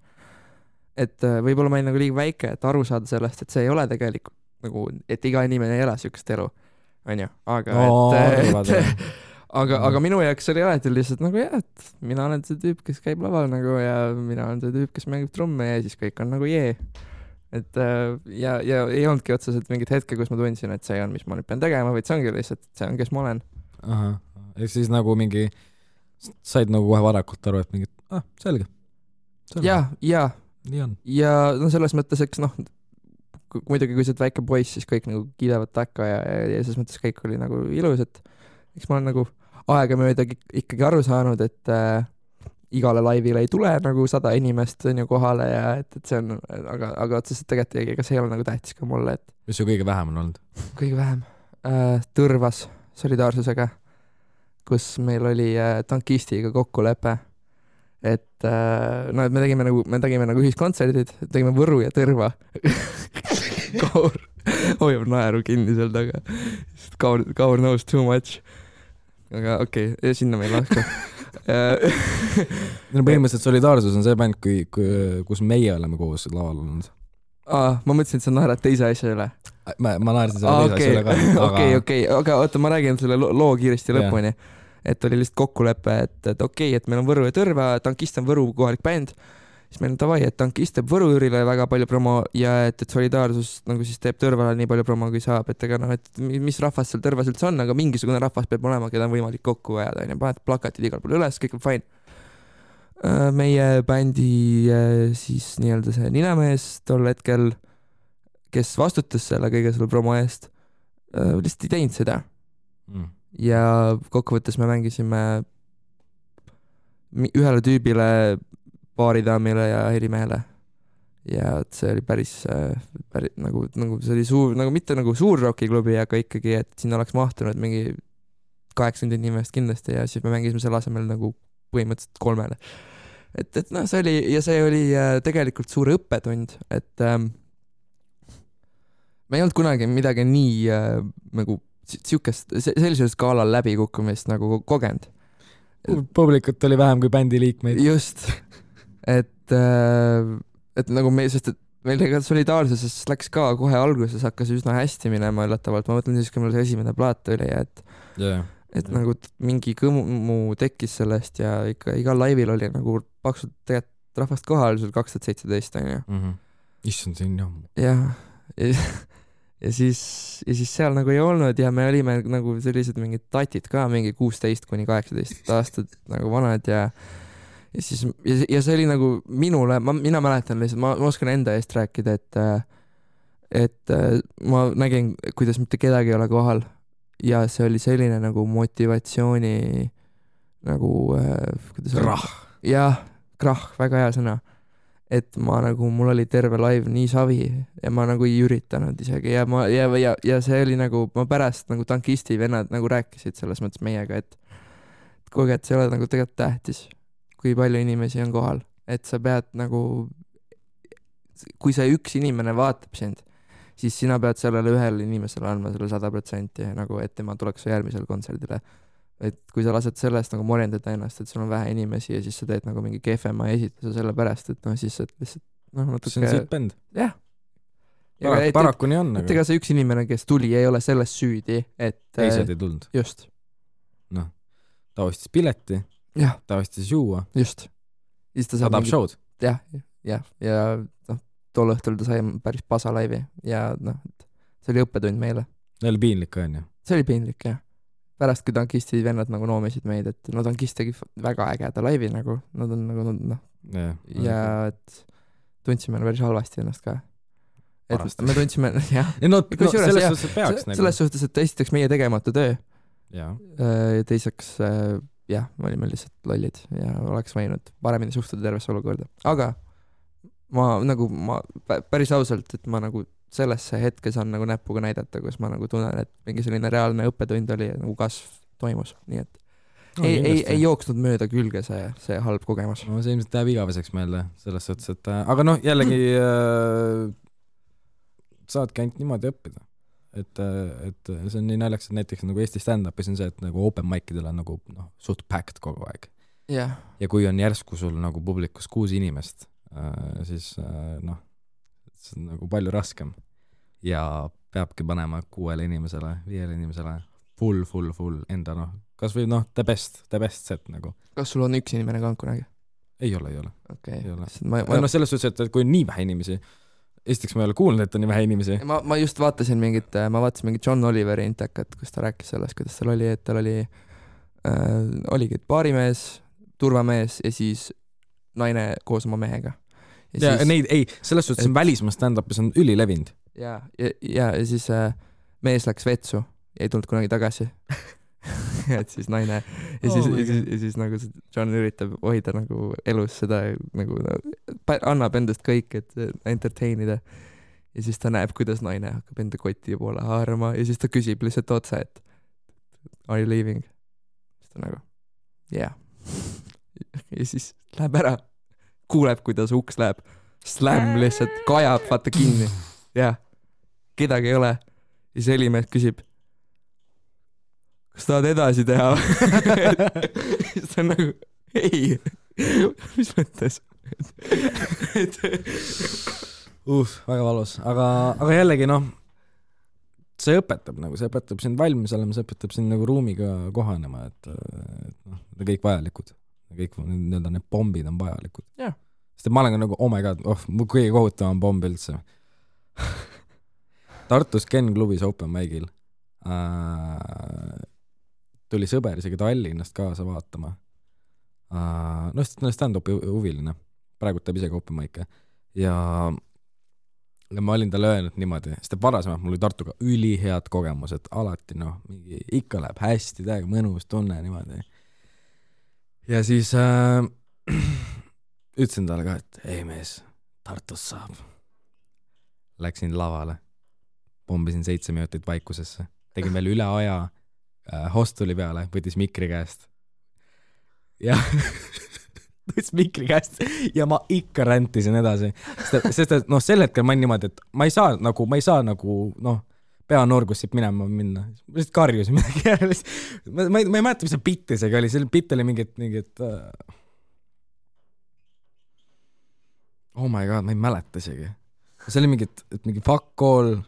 B: Et võib-olla ma olin nagu liiga väike, et aru saada sellest, et see ei ole tegelikult nagu, et iga inimene ei ela sükest elu, on ju, aga minu jaoks oli alati lihtsalt nagu et mina olen see tüüp, kes käib laval nagu ja mina olen see tüüp, kes mängib trumme ja siis kõik on nagu et ja ei olnudki otseselt mingit hetke, kus ma tundsin, et see on, mis ma nüüd pean tegema, vaid see ongi lihtsalt, see on, kes ma olen.
A: Ehk siis nagu mingi said nagu kohe varakult aru, et mingid, selge.
B: Ja
A: nii on.
B: Ja no selles mõttes, eks muidugi kui sa oled väike poiss, siis kõik nagu kiidevad takka ja selles mõttes kõik oli nagu ilus, et eks ma olen nagu aegamööda ikkagi aru saanud, et igale laivile ei tule nagu 100 inimest on ju kohale ja et see on, aga otseselt tegelikult ega see ei ole nagu tähtis ka mulle, et
A: mis su kõige vähem on olnud?
B: Kõige vähem? Tõrvas solidaarsusega, kus meil oli tankistiga kokkulepe, et et me tegime nagu ühiskontserdid, tegime Võru ja Tõrva. Kaur hoiab naeru kinni seal taga. Kaur knows too much. Aga okei, sinna me ei laska.
A: Põhimõtteliselt solidaarsus on see bänd, kus meie oleme koos laval olnud.
B: Ma mõtlesin, et sa naerad teise asja üle.
A: Ma naersin selle teise asja üle ka.
B: Okei, aga oota, ma räägin selle loo kiiresti lõpuni. Et oli lihtsalt kokkulepe, et okei, et meil on Võru ja Tõrva, tankist on Võru kohalik bänd, siis meil on tavai, et tankist teeb Võru-Jürile väga palju promo ja et solidaarsus nagu siis teeb Tõrvale nii palju promo, kui saab, et ega et mis rahvas seal Tõrvas üldse on, aga mingisugune rahvas peab olema, keda on võimalik kokku ajada, paned plakatid igal pool üles, kõik on fine. Meie bändi siis nii-öelda see ninamees tol hetkel, kes vastutas selle kõige selle promo eest, lihtsalt ei teinud seda. Ja kokkuvõttes me mängisime ühele tüübile, baaridaamile ja helimehele. Ja see oli päris nagu see oli suur, nagu mitte nagu suur rockiklubi, aga ikkagi, et siin oleks mahtunud mingi 80 inimest kindlasti ja siis me mängisime selle asemel nagu põhimõtteliselt 3. Et noh, see oli tegelikult suur õppetund, et me ei olnud kunagi midagi nii nagu siukest, sellisel skaalal läbikukkumist nagu kogenud.
A: Publikut oli vähem kui bändi liikmeid.
B: Just, et nagu sest et meil tegelikult solidaarsuses läks ka kohe alguses, hakkas üsna hästi minema üllatavalt. Ma mõtlen siis, kui meil see esimene plaat oli, et nagu mingi kõmu tekkis sellest ja ikka igal laivil oli nagu paksult tegelikult rahvast kohal, see oli 2017 on ju.
A: Issand, see on jammu.
B: Jah, ja siis seal nagu ei olnud ja me olime nagu sellised mingid tatid ka, mingi 16 kuni 18 aastat nagu vanad ja siis ja see oli nagu minule, mina mäletan lihtsalt, ma oskan enda eest rääkida, et ma nägin, kuidas mitte kedagi ei ole kohal ja see oli selline nagu motivatsiooni nagu
A: krahh.
B: Jah, krahh, väga hea sõna. Et ma nagu, mul oli terve live nii savi ja ma nagu ei üritanud isegi ja see oli nagu, ma pärast nagu tankisti vennad nagu rääkisid selles mõttes meiega, et kuulge, et see ei ole nagu tegelikult tähtis, kui palju inimesi on kohal, et sa pead nagu, kui see üks inimene vaatab sind, siis sina pead sellele ühele inimesele andma selle 100% nagu, et tema tuleks järgmisel kontserdile. Et kui sa lased sellest nagu morjendada ennast, et sul on vähe inimesi ja siis sa teed nagu mingi kehvema esituse selle pärast, et noh, siis et lihtsalt natuke...
A: See on siit bänd.
B: Jah.
A: Paraku nii on.
B: Et ega see üks inimene, kes tuli, ei ole selles süüdi, et...
A: Teised ei tulnud.
B: Just.
A: Noh, ta ostis pileti, ta ostis juua.
B: Just.
A: Ta tahab show'd.
B: Ja noh, tol õhtul ta sai päris pasa laivi ja noh, see oli õppetund meile.
A: See oli piinlik, on ju?
B: See oli piinlik, jah. Pärast, kui tankistid vennad nagu noomisid meid, et no tankist tegi väga ägeda laivi nagu, nad on nagu noh, ja et tundsime päris halvasti ennast ka. Et me tundsime, jah.
A: Selles suhtes, et peaks.
B: Selles suhtes, et esiteks meie tegemata töö.
A: Ja
B: teiseks, jah, me olime lihtsalt lollid ja oleks võinud paremini suhtuda tervesse olukorda. Aga ma päris ausalt, et ma nagu sellesse hetkes on nagu näpuga näidata, kus ma nagu tunnen, et mingi selline reaalne õppetund oli ja nagu kasv toimus, nii et ei jooksnud mööda külge see halb kogemus.
A: No see ilmselt jääb igaveseks meelde selles suhtes, et aga noh, jällegi saadki ainult niimoodi õppida, et see on nii naljaks, et näiteks nagu Eesti stand-upis on see, et nagu open mic'idel on nagu suht packed kogu aeg. Ja kui on järsku sul nagu publikus 6 inimest, siis noh, see on nagu palju raskem ja peabki panema 6 inimesele, 5 inimesele full enda kas või the best set nagu.
B: Kas sul on üks inimene ka kunagi?
A: Ei ole.
B: Okay.
A: Ei ole. Selles suhtes, et kui on nii vähe inimesi, esiteks ma ei ole kuulnud, et on nii vähe inimesi.
B: Ma just vaatasin mingit John Oliveri intekat, kus ta rääkis sellest, kuidas tal oli, et tal oligi baarimees, turvamees ja siis naine koos oma mehega.
A: Ja neid, selles suhtes on välismaa stand-upis on ülilevinud.
B: Ja siis mees läks vetsu ja ei tulnud kunagi tagasi. Et siis naine ja siis nagu John üritab hoida nagu elus seda nagu annab endast kõik, et entertainida. Ja siis ta näeb, kuidas naine hakkab enda koti poole haarama ja siis ta küsib lihtsalt otsa, et are you leaving? Siis ta nagu yeah. Ja siis läheb ära, kuuleb, kuidas uks läheb, slam lihtsalt kajab, vaata kinni. Ja kedagi ei ole. Ja see helimees küsib, kas tahad edasi teha? Siis ta on nagu, ei, mis mõttes?
A: Väga valus. Aga jällegi see õpetab sind valmis olema, see õpetab sind nagu ruumiga kohanema, et kõik vajalikud. Kõik need bombid on vajalikud.
B: Yeah.
A: Sest ma olen ka nagu, oh my god, mu kõige kohutavam bomb üldse. Tartus Ken klubis open mic'il tuli sõber isegi Tallinnast kaasa vaatama. Stand-upi huviline. Praegu teeb isegi open mic'e. Ja ja ma olin talle öelnud niimoodi, sest varasemalt mul oli Tartuga ülihead kogemused, alati mingi ikka läheb hästi, täiega mõnus tunne niimoodi. Ja siis ütlesin talle ka, et ei mees, Tartus saab. Läksin lavale, pombisin 7 minutit vaikusesse, tegin veel üle aja hostuli peale, võttis mikri käest. Ja võttis mikri käest ja ma ikka räntisin edasi. Sest et sel hetkel ma olin niimoodi, et ma ei saa peanorgus siit minema. Ma lihtsalt karjusin midagi järele. Ma ei mäleta, mis see bitt isegi oli. See bitt oli mingit oh my god, ma ei mäleta isegi. See oli mingi fuck call,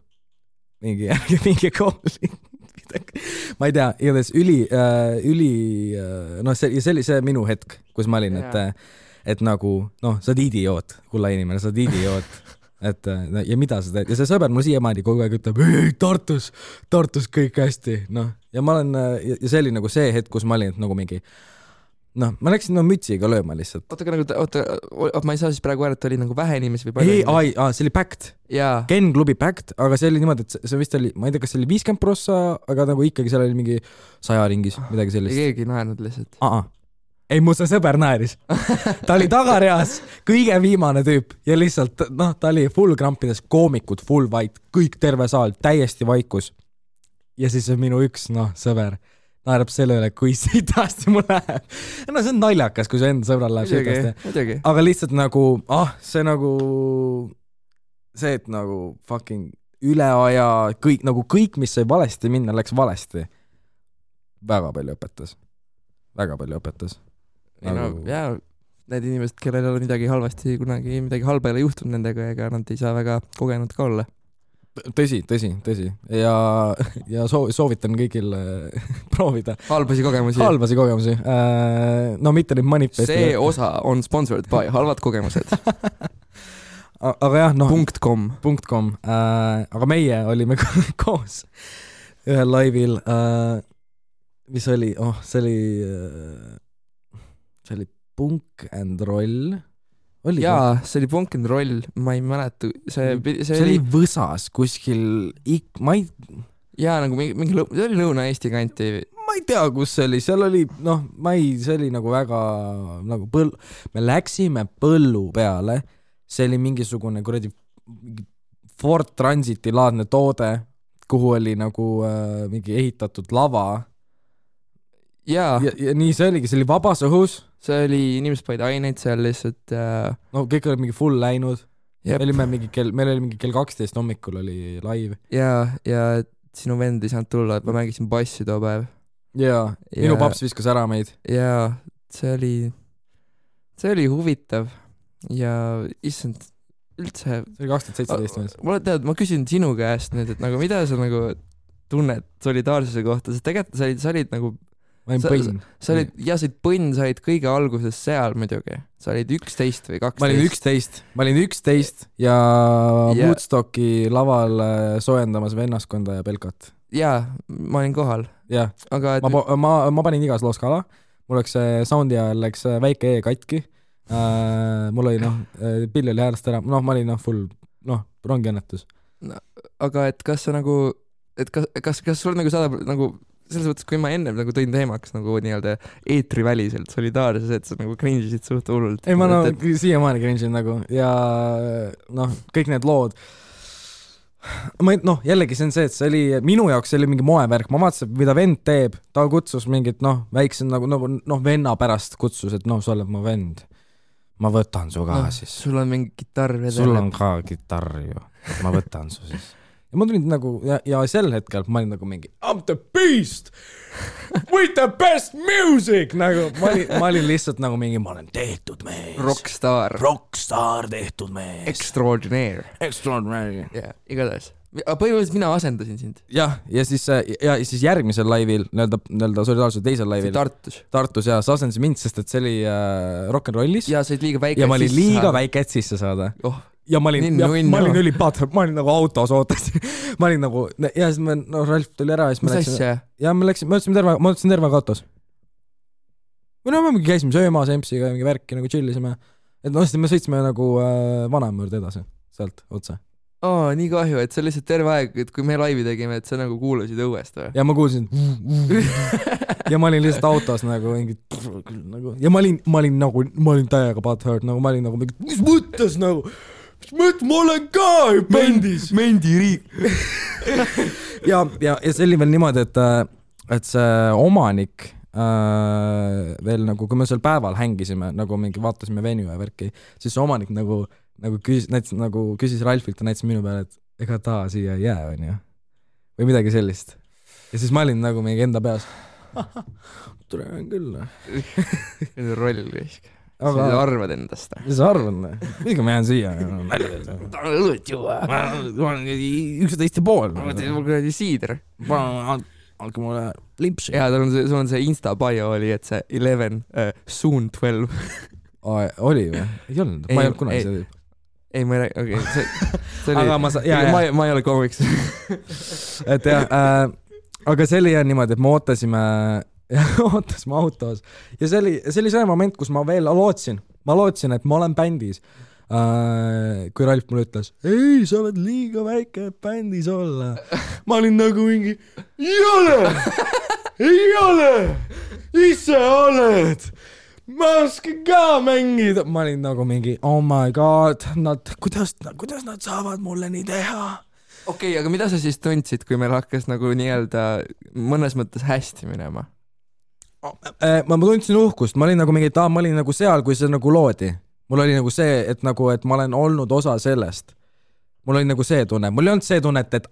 A: mingi call. Ma ei tea, igatahes see oli see minu hetk, kus ma olin, et nagu, sa oled idioot, kulla inimene, sa oled idioot. Ja mida sa teed? Ja see sõber mul siiamaani kogu aeg ütleb, ei, Tartus kõik hästi. Ja ma olen, ja see oli nagu see hetk, kus ma olin, et nagu mingi, ma läksin mütsiga lööma lihtsalt.
B: Ma ei saa siis praegu öelda, et oli nagu vähe inimesi või palju?
A: See oli packed. Ken klubi packed, aga see oli niimoodi, et see vist oli, ma ei tea, kas see oli 50%, aga nagu ikkagi seal oli mingi 100 ringis, midagi sellist.
B: Keegi naernud lihtsalt.
A: Ei, mu see sõber naeris. Ta oli tagareas, kõige viimane tüüp ja lihtsalt, ta oli full krampides, koomikud, full white, kõik terve saal, täiesti vaikus. Ja siis minu üks, sõber naerab selle üle, kui sitasti mul läheb. See on naljakas, kui see enda sõbral läheb sitasti. Aga lihtsalt nagu, see, et nagu fucking üle aja, kõik, mis sai valesti minna, läks valesti. Väga palju õpetas.
B: Need inimesed, kellel on midagi halvasti, kunagi midagi halba ei ole juhtunud nendega, ega nad ei saa väga kogenud ka olla.
A: Tõsi. Ja soovitan kõigil proovida.
B: Halbasi kogemusi.
A: Mitte neid manifeste.
B: See osa on sponsored by halvad kogemused.
A: Aga jah,
B: .com.
A: Aga meie olime koos ühel laivil, mis oli, see oli Punk and Roll.
B: Jaa, see oli Punk and Roll, ma ei mäleta. See
A: oli Võsas kuskil,
B: jaa, nagu mingi see oli Lõuna-Eesti kanti.
A: Ma ei tea, kus see oli, seal oli, see oli nagu väga, nagu me läksime põllu peale, see oli mingisugune kuradi Ford Transiti laadne toode, kuhu oli nagu mingi ehitatud lava. Ja nii see oligi, see oli vabas õhus.
B: See oli, inimesed panid aineid seal lihtsalt.
A: Kõik oli mingi full läinud. Meil oli mingi kell 12 hommikul oli live.
B: Ja sinu vend ei saanud tulla, et ma mängisin bassi too päev.
A: Ja minu paps viskas ära meid.
B: Ja see oli huvitav ja issand, üldse.
A: See oli 2017.
B: Ma küsin sinu käest nüüd, et nagu mida sa nagu tunned solidaarsuse kohta, sest tegelikult sa olid nagu
A: ma olin põnn.
B: Sa olid põnn, sa olid kõige alguses seal muidugi. Sa olid 11 või 12.
A: Ma olin 11 ja Woodstocki laval soojendamas vennaskonda ja Belkat.
B: Jaa, ma olin kohal.
A: Jaa, aga ma panin igas loos kala. Mul läks soundi ajal läks väike katki. Mul oli pill oli häälest ära. Ma olin full, rongiõnnetus.
B: Aga et kas sa nagu, et kas sul nagu saadab nagu selles mõttes, kui ma ennem nagu tõin teemaks nagu nii-öelda eetriväliselt solidaarses, et sa nagu cringe'isid suht hullult.
A: Ei, ma siiamaani cringe'in nagu ja kõik need lood. Jällegi see on see, et see oli, minu jaoks see oli mingi moevärk, ma vaatasin, mida vend teeb, ta kutsus mingit väikse venna pärast kutsus, et sa oled mu vend. Ma võtan su ka siis.
B: Sul on mingi kitarr vedel.
A: Sul on ka kitarr ju, et ma võtan su siis. Ja ma tulin nagu, ja sel hetkel ma olin nagu mingi I'm the beast with the best music nagu, ma olin lihtsalt nagu mingi, ma olen tehtud mees. Rockstar tehtud mees.
B: Extraordinaire. Yeah, igatahes. Põhimõtteliselt mina asendasin sind.
A: Ja siis järgmisel laivil, nõelda solidaarsuse teisel laivil. Tartus ja sa asendasid mind, sest et see oli rock'n'rollis.
B: Ja sa olid liiga väike.
A: Ja ma olin liiga väike, et sisse saada. Ja ma olin ülipatr, ma olin nagu autos ootasin. Ma olin nagu, ja siis Ralf tuli ära.
B: Mis asja?
A: Ja ma ütlesin terve autos. Või me käisime söömas Empsiga ja mingi värki nagu chillisime. Et me sõitsime nagu vanaema juurde edasi, sealt otse.
B: nii kahju, et see lihtsalt terve aeg, et kui me laivi tegime, et sa nagu kuulasid õuest või?
A: Ja ma kuulsin ja ma olin lihtsalt autos nagu mingi nagu ja ma olin täiega butthurt, nagu ma olin nagu mingi, mis mõttes nagu, ma olen ka bändis.
B: Mendiriik.
A: ja see oli veel niimoodi, et see omanik veel nagu, kui me seal päeval hängisime, nagu mingi vaatasime venue ja värki, siis see omanik nagu küsis Ralfilt ja näitas minu peale, et ega ta siia ei jää, on ju. Või midagi sellist. Ja siis ma olin nagu mingi enda peas. Tulen küll.
B: Roll risk. Sa arvad endast.
A: Mis sa arvad? Miga ma jään siia?
B: Ta on õlut juua.
A: Ma olen 11,5.
B: Ma teen mul kuradi siider.
A: Andke mulle limpsi.
B: Jaa, sul on see Insta bio oli, et see 11, soon 12.
A: Oli või? Ei olnud. Ma ei olnud kunagi see tüüp.
B: Ei, ma ei räägi, okei. See oli, ma ei ole komiks.
A: Et jah, aga see oli jah niimoodi, et me ootasime autos ja see oli see moment, kus ma veel lootsin, et ma olen bändis. Kui Ralf mulle ütles, ei, sa oled liiga väike bändis olla. Ma olin nagu mingi, ei ole, ise oled, ma oskan ka mängida. Ma olin nagu mingi, oh my god, kuidas nad saavad mulle nii teha?
B: Okei, aga mida sa siis tundsid, kui meil hakkas nagu nii-öelda mõnes mõttes hästi minema?
A: Ma tundsin uhkust, ma olin nagu mingi, ma olin nagu seal, kui see nagu loodi. Mul oli nagu see, et ma olen olnud osa sellest. Mul oli nagu see tunne. Mul ei olnud see tunne, et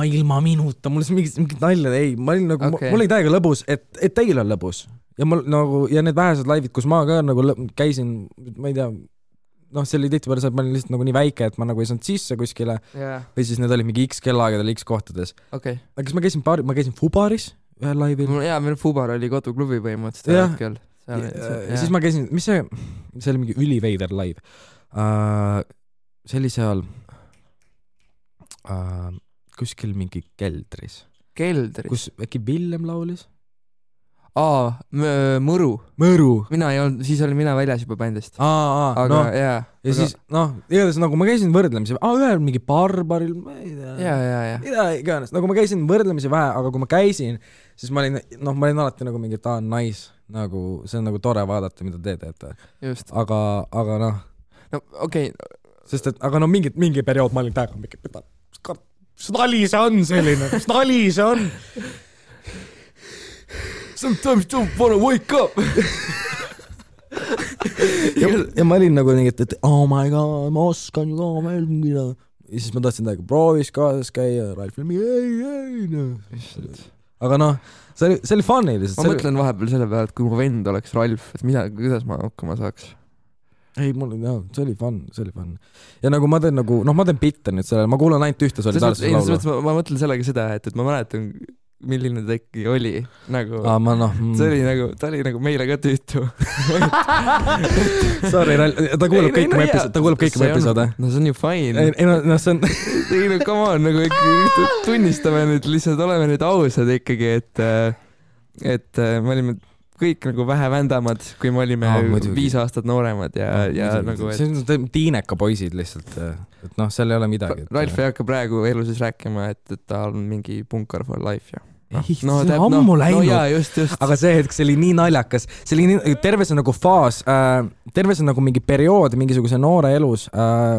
A: ilma minuta, mul oli mingit nalja, ei, ma olin nagu, mul oli täiega lõbus, et teil on lõbus. Ja mul nagu, ja need vähesed laivid, kus ma ka nagu käisin, ma ei tea, see oli tihti peale see, et ma olin lihtsalt nagu nii väike, et ma nagu ei saanud sisse kuskile. Või siis need olid mingi X kellaagadel X kohtades.
B: Okay.
A: Aga kas ma käisin Fubaris ühel laivil?
B: Jaa, meil Fubar oli koduklubi põhimõtteliselt hetkel.
A: Ja siis ma käisin, mis see oli mingi üliveider live. See oli seal kuskil mingi keldris. Kus äkki Villem laulis?
B: Mõru. Mina ei olnud, siis olin mina väljas juba bändist. Aga jaa.
A: Ja siis, igatahes nagu ma käisin võrdlemisi, ühel mingi barbaril, ma ei tea.
B: Jaa.
A: Mida iganes, nagu ma käisin võrdlemisi vähe, aga kui ma käisin, siis ma olin alati nagu mingi, ta on nice, nagu see on nagu tore vaadata, mida te teete.
B: Just.
A: Aga
B: no, okei.
A: Sest et, aga mingi periood ma olin täiega mingi, mis nali see on selline, mis nali see on?
B: Sometimes don't wanna wake up.
A: ja ma olin nagu nii, et oh my god, ma oskan ju ka veel mida. Ja siis ma tahtsin täiega proovis kaasas käia, Ralf oli ei. Aga see oli funny lihtsalt.
B: Ma mõtlen vahepeal selle peale, et kui mu vend oleks Ralf, et kuidas ma hakkama saaks?
A: Ei, see oli fun. Ja nagu ma teen bitte nüüd sellele, ma kuulan ainult ühte solidaarsus laulu.
B: Ma mõtlen sellega seda, et ma mäletan, milline ta ikkagi oli. Nagu, see oli nagu meile ka tüütu.
A: Sorry, ta kuulab kõik mu episoode.
B: No see on ju fine.
A: See on...
B: come on, nagu ikkagi tunnistame nüüd, lihtsalt oleme nüüd ausad ikkagi, et me olime kõik nagu vähe vändamad, kui me olime 5 aastat nooremad ja nagu...
A: See on tiineka poisid lihtsalt, et seal ei ole midagi.
B: Ralf ei hakka praegu eluses rääkima, et ta on mingi punkar for life ja...
A: see on ammu läinud,
B: just.
A: Aga see hetk, see oli nii naljakas, see oli nii, terve see nagu faas, terve see nagu mingi periood mingisuguse noore elus,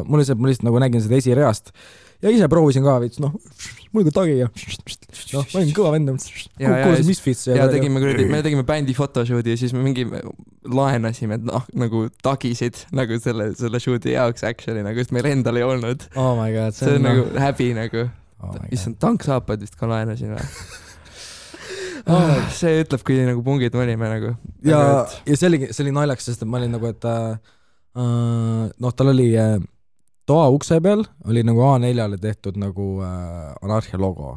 A: mul lihtsalt nagu nägin seda esireast ja ise proovisin ka veits, mul ka tagi ja ma olin kõva vend, kuulasin Misfits
B: ja me tegime bändi photoshooti ja siis me mingi laenasime nagu tagisid nagu selle shooti jaoks actually, nagu just meil endal ei olnud.
A: Oh my god,
B: see on nagu häbi nagu. Issand, tanksaapad vist ka laenasin või? See ütleb, kui nagu pungid me olime nagu.
A: Ja see oli naljaks, sest ma olin nagu, et tal oli toa ukse peal oli nagu A4-le tehtud nagu Anarhia logo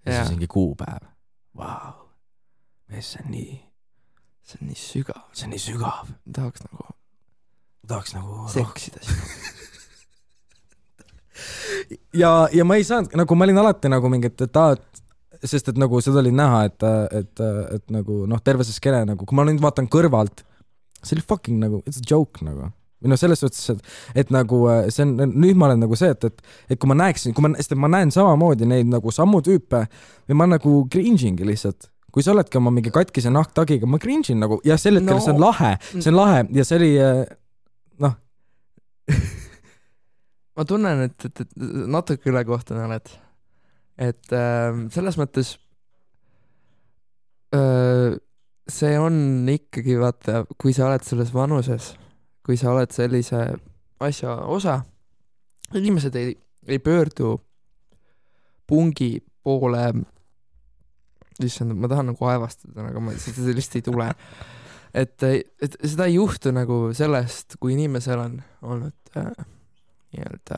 A: ja siis mingi kuupäev. Vau, see on nii sügav. Tahaks nagu
B: seksida sinu.
A: ja ma ei saanud, nagu ma olin alati nagu mingi, sest et nagu seda oli näha, et nagu terve see skene nagu, kui ma nüüd vaatan kõrvalt, see oli fucking nagu, it's a joke nagu. või selles suhtes, et nagu see on, nüüd ma olen nagu see, et kui ma näeksin, sest ma näen samamoodi neid nagu sammu tüüpe või ma nagu cringe'ingi lihtsalt. Kui sa oledki oma mingi katkise nahktagiga, ma cringe'in nagu ja sel hetkel see on lahe ja see oli noh.
B: Ma tunnen, et natuke ülekohtune oled. Et selles mõttes see on ikkagi, vaata, kui sa oled selles vanuses, kui sa oled sellise asja osa, inimesed ei pöördu pungi poole, issand, ma tahan nagu aevastada, aga seda lihtsalt ei tule. Et seda ei juhtu nagu sellest, kui inimesel on olnud nii-öelda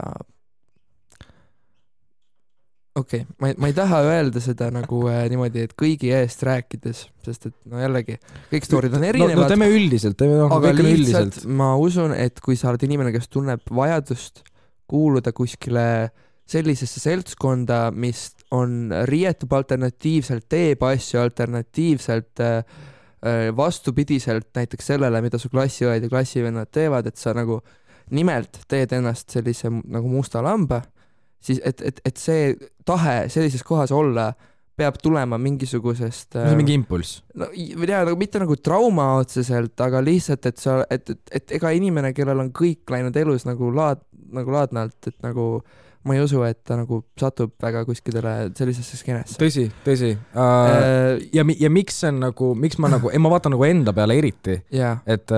B: okei, ma ei taha öelda seda nagu niimoodi, et kõigi eest rääkides, sest et no jällegi, kõik stoorid on erinevad.
A: No teeme üldiselt,
B: aga lihtsalt ma usun, et kui sa oled inimene, kes tunneb vajadust kuuluda kuskile sellisesse seltskonda, mis on riietub alternatiivselt, teeb asju alternatiivselt, vastupidiselt näiteks sellele, mida su klassiõed ja klassivennad teevad, et sa nagu nimelt teed ennast sellise nagu musta lamba, siis et see tahe sellises kohas olla peab tulema mingisugusest
A: mingi impulss.
B: No, nagu, mitte nagu trauma otseselt, aga lihtsalt, et ega inimene, kellel on kõik läinud elus nagu laadnalt, et nagu ma ei usu, et ta nagu satub väga kuskidele sellisesse skeenesse.
A: Tõsi. Ja miks see on nagu, miks ma nagu, ma vaatan nagu enda peale eriti, et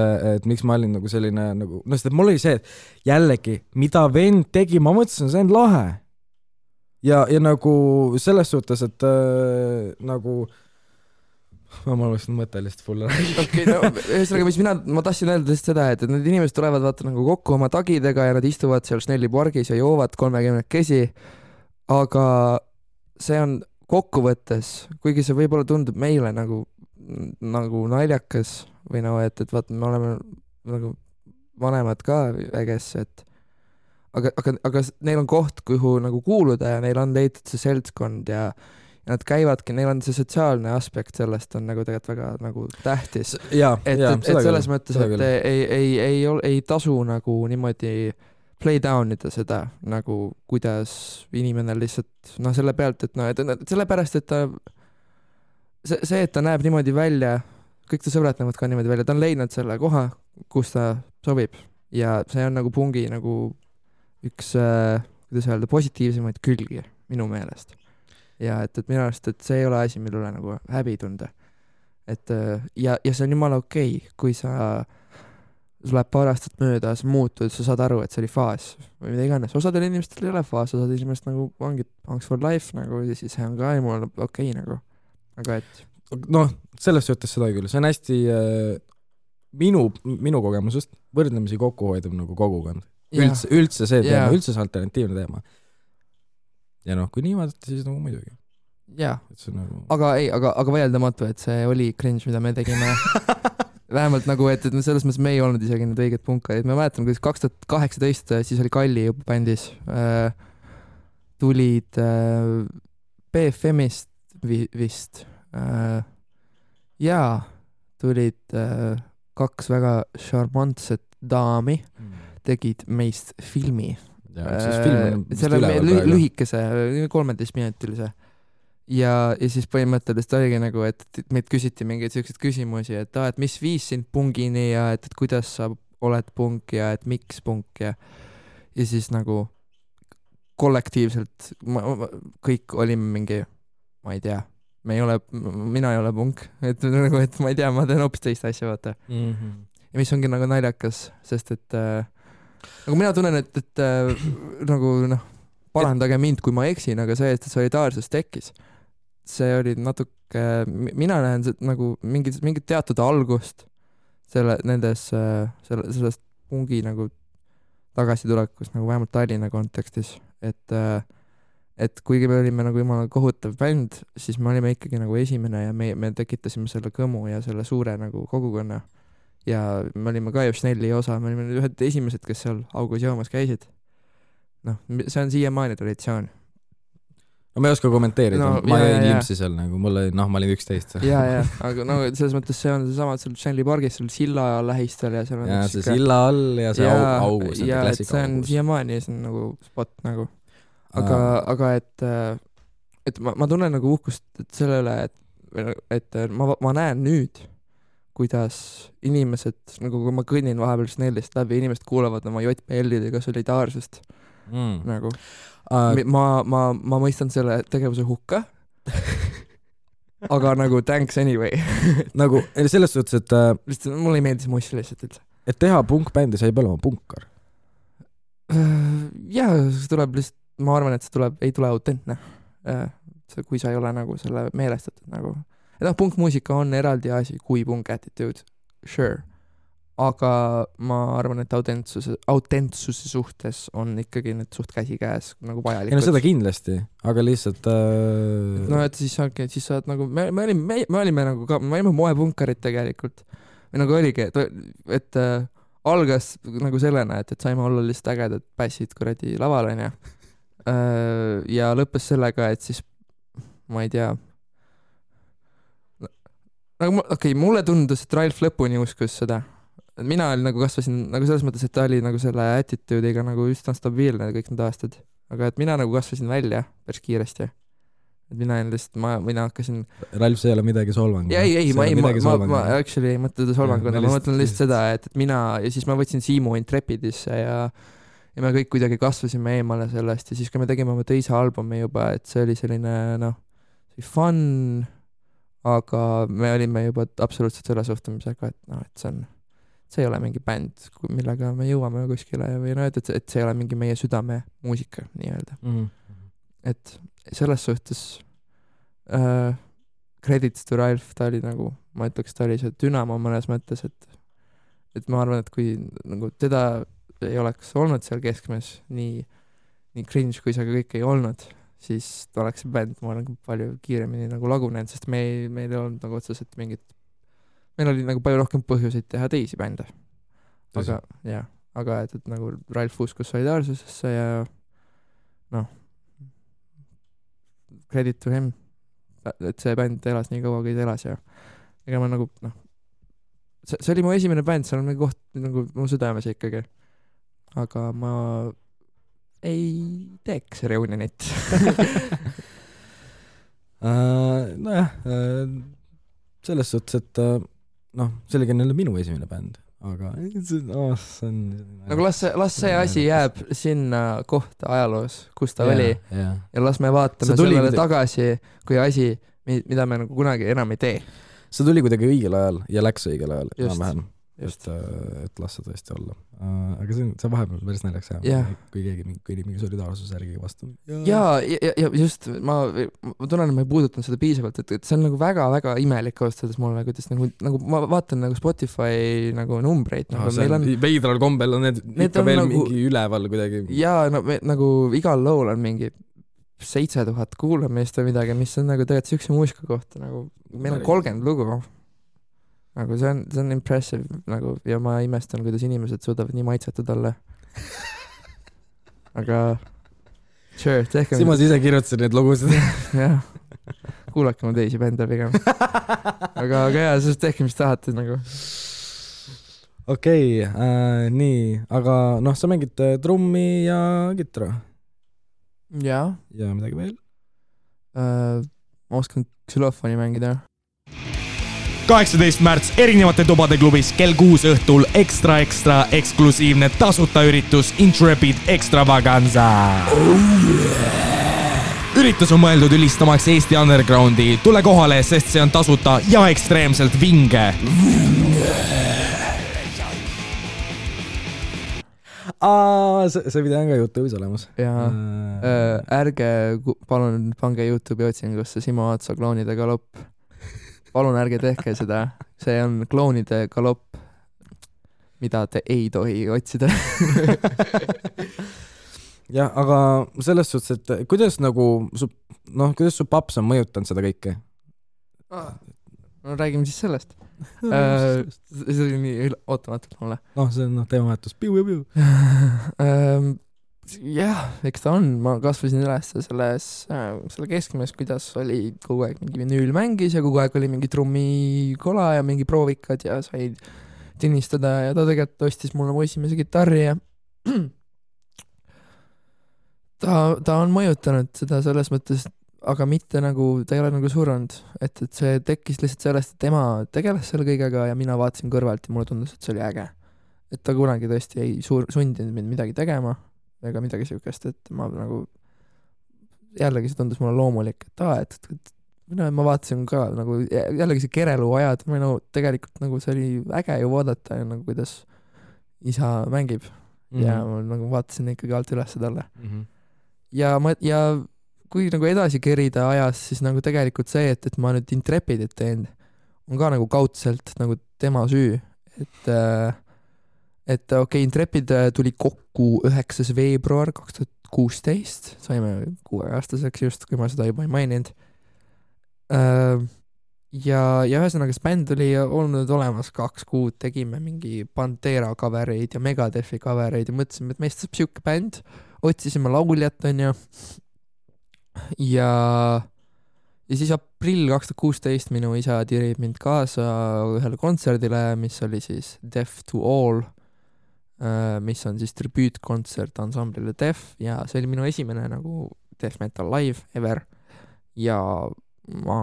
A: miks ma olin nagu selline nagu, no sest mul oli see, et jällegi, mida vend tegi, ma mõtlesin, see on lahe. Ja nagu selles suhtes, et nagu ma oleksin mõte lihtsalt full räägi.
B: Okei, no ühesõnaga, mis ma tahtsin öelda lihtsalt seda, et need inimesed tulevad vaata nagu kokku oma tagidega ja nad istuvad seal Snelli pargis ja joovad 30 kesi, aga see on kokkuvõttes, kuigi see võib-olla tundub meile nagu naljakas või no, et vaata, me oleme nagu vanemad ka väges, et aga neil on koht, kuhu nagu kuuluda ja neil on leitud see seltskond ja nad käivadki, neil on see sotsiaalne aspekt sellest on nagu tegelikult väga nagu tähtis. Et selles mõttes, et ei tasu nagu niimoodi play down ida seda, nagu kuidas inimene lihtsalt, selle pealt, et sellepärast, et ta see, et ta näeb niimoodi välja, kõik ta sõbrad näevad ka niimoodi välja, ta on leidnud selle koha, kus ta sobib ja see on nagu pungi nagu üks, kuidas öelda, positiivsemaid külgi minu meelest. Ja et minu arust, et see ei ole asi, mille üle nagu häbi tunda. Et ja see on jumala okei, kui sul läheb paar aastat mööda, sa muutud, sa saad aru, et see oli faas või mida iganes. Osadel inimestel ei ole faas, osadel inimestel nagu ongi thanks for life nagu ja siis see on ka jumala okei nagu. Aga et
A: noh, selles suhtes seda küll. See on hästi minu kogemusest võrdlemisi kokkuhoidav nagu kogukond. Üldse see teema, üldse see alternatiivne teema. Ja noh, kui nii vaadata, siis nagu muidugi.
B: Jaa,
A: nagu...
B: aga vaieldamatu, et see oli cringe, mida me tegime. Vähemalt nagu, et selles mõttes me ei olnud isegi need õiged punkaid. Me mäletan, kui 2018 siis oli Kalli juba bändis. Tulid BFM-ist vist. Ja tulid 2 väga šarmantset daami, tegid meist filmi. Selle lühikese 13-minutilise ja siis põhimõtteliselt oligi nagu, et meid küsiti mingeid selliseid küsimusi, et mis viis sind pungini ja et kuidas sa oled punk ja et miks punk ja siis nagu kollektiivselt kõik olime mingi, ma ei tea, mina ei ole punk, et nagu, et ma ei tea, ma teen hoopis teist asja, vaata. Ja mis ongi nagu naljakas, sest et nagu mina tunnen, et nagu parandage mind, kui ma eksin, aga see, et solidaarsus tekkis, see oli natuke, mina näen nagu mingit teatud algust sellest pungi nagu tagasitulekus nagu vähemalt Tallinna kontekstis, et kuigi me olime nagu jumala kohutav bänd, siis me olime ikkagi nagu esimene ja me tekitasime selle kõmu ja selle suure nagu kogukonna. Ja me olime ka Snelli osa, me olime ühed esimesed, kes seal augus joomas käisid. See on siiamaani traditsioon.
A: ma ei oska kommenteerida,
B: No,
A: ma
B: jaa,
A: jäin
B: jaa.
A: limpsi seal nagu, ma olin 11.
B: ja, aga no selles mõttes see on seesama, et seal Stanley Pargis, seal silla lähistel ja seal on
A: ja
B: üks
A: see
B: siuke-
A: silla all ja see augus,
B: ja et
A: klassika
B: see on
A: augus.
B: siiamaani, see on nagu spot nagu. Aga et ma tunnen nagu uhkust selle üle, et ma näen nüüd, kuidas inimesed, nagu kui ma kõnnin vahepeal Snellist läbi, inimesed kuulavad oma JPL-idega solidaarsust. Nagu. Ma mõistan selle tegevuse hukka, aga nagu thanks anyway.
A: nagu selles suhtes, et
B: lihtsalt mulle ei meeldis Moss lihtsalt üldse.
A: et teha punkbändi, sa ei pea olema punkar.
B: Jaa, see tuleb lihtsalt, ma arvan, et see ei tule autentne. Kui sa ei ole nagu selle meelestatud nagu. Et punkmuusika on eraldi asi kui punk attitude, sure. Aga ma arvan, et autentsuse suhtes on ikkagi need suht käsikäes nagu vajalikud.
A: Ei no seda kindlasti, aga lihtsalt
B: no et siis sa oled nagu, me olime nagu ka, me olime moepunkarid tegelikult. Või nagu oligi, et algas nagu sellena, et saime olla lihtsalt ägedad bassid kuradi laval, on ja. Ja lõppes sellega, et siis ma ei tea nagu mulle tundus, et Ralf lõpuni uskus seda. Mina nagu kasvasin nagu selles mõttes, et ta oli nagu selle attitude'iga nagu üsna stabiilne kõik need aastad. Aga et mina nagu kasvasin välja päris kiiresti. Et mina hakkasin
A: Ralf, see ei ole midagi solvangu.
B: Ei, ma actually ei mõtle seda solvanguna, ma mõtlen lihtsalt seda, et mina ja siis ma võtsin Siimu Intrepidisse ja me kõik kuidagi kasvasime eemale sellest ja siis kui me tegime oma teise albumi juba, et see oli selline fun, aga me olime juba absoluutselt selle suhtumisega, et see ei ole mingi bänd, millega me jõuame kuskile või et see ei ole mingi meie südame muusika nii-öelda. Et selles suhtes credits to Ralf, ta oli nagu, ma ütleks, ta oli see dünamo mõnes mõttes, et ma arvan, et kui nagu teda ei oleks olnud seal keskmes nii cringe, kui see kõik ei olnud, siis oleks see bänd, ma olen palju kiiremini nagu lagunenud, sest meil ei olnud nagu otseselt meil oli nagu palju rohkem põhjuseid teha teisi bände. Aga et nagu Ralf uskus solidaarsusesse ja credit to him, et see bänd elas nii kaua, kui ta elas ja ega ma nagu see oli mu esimene bänd, seal on mingi koht nagu mu südames ikkagi. Aga ma ei teeks reunionit.
A: Nojah, selles suhtes, et see oli jälle minu esimene bänd, aga see on
B: nagu las see asi jääb sinna kohta ajaloos, kus ta oli ja las me vaatame sellele tagasi kui asi, mida me nagu kunagi enam ei tee.
A: See tuli kuidagi õigel ajal ja läks õigel ajal enam-vähem. Et las see tõesti olla. Aga see vahepeal päris näljaks kui keegi mingi solidaarsuse järgi vastu.
B: Ja just, ma tunnen, et ma ei puudutanud seda piisavalt, et see on nagu väga-väga imelik austades mulle, kuidas nagu ma vaatan nagu Spotify nagu numbreid.
A: Veidral kombel on need ikka veel nagu, mingi üleval kuidagi.
B: Ja nagu igal lool on mingi 7000 kuulamist või midagi, mis on nagu tegelikult siukse muusika kohta, nagu meil on 30 lugu. Nagu see on impressive nagu, ja ma imestan, kuidas inimesed suudavad nii maitsetud olla. Aga sure, tehke...
A: Simas ise kirjutasid need lugusid.
B: Jah, kuulake mu teisi bände pigem. Aga jah, sest tehke, mis tahate nagu.
A: Okei, nii, aga sa mängid trummi ja kitra?
B: Jaa.
A: Ja midagi veel?
B: Ma oskan xylofoni mängida.
C: 18. märts erinevate tubade klubis kell 6 õhtul ekstra eksklusiivne tasuta üritus Intrepid Extravaganza. Üritus on mõeldud ülistamaks Eesti undergroundi. Tule kohale, sest see on tasuta ja ekstreemselt vinge.
A: See video on ka YouTube'is olemas.
B: Ja ärge palun pange YouTube'i otsingusse Simo Aatsa kloonide galopp. Palun ärge tehke seda. See on kloonide galopp, mida te ei tohi otsida.
A: Jah, aga selles suhtes, et kuidas su paps on mõjutanud seda kõike?
B: No räägime siis sellest. See oli nii ootamatult mulle.
A: See on teemavahetus. Piu.
B: jah, eks ta on, ma kasvasin üles selle keskmes, kuidas oli kogu aeg mingi vinüül mängis ja kogu aeg oli mingi trummikola ja mingi proovikad ja sai tinnistada ja ta tegelikult ostis mulle mu esimese kitarri ja ta on mõjutanud seda selles mõttes, aga mitte nagu, ta ei ole nagu surnud, et see tekkis lihtsalt sellest, et tema tegeles selle kõigega ja mina vaatasin kõrvalt ja mulle tundus, et see oli äge. Et ta kunagi tõesti ei sundinud mind midagi tegema ega midagi siukest, et ma nagu jällegi see tundus mulle loomulik, et ma vaatasin ka nagu jällegi see kerelu ajad, tegelikult nagu see oli äge ju vaadata nagu kuidas isa mängib ja ma nagu vaatasin ikkagi alt üles talle. Ja kui nagu edasi kerida ajas, siis nagu tegelikult see, et ma nüüd Intrepidit teen, on ka nagu kaudselt nagu tema süü, et okei, Intrepid tuli kokku 9. veebruar 2016, saime 6-aastaseks just, kui ma seda juba ei maininud. Ja ühesõnaga see bänd oli olnud olemas 2 kuud, tegime mingi Pantera covereid ja Megadethi covereid ja mõtlesime, et meist saab siuke bänd, otsisime lauljat, onju. Ja siis aprill 2016 minu isa tirib mind kaasa ühele kontserdile, mis oli siis Death to All, mis on siis tribüütkontsert ansamblile Death ja see oli minu esimene nagu Death Metal live ever ja ma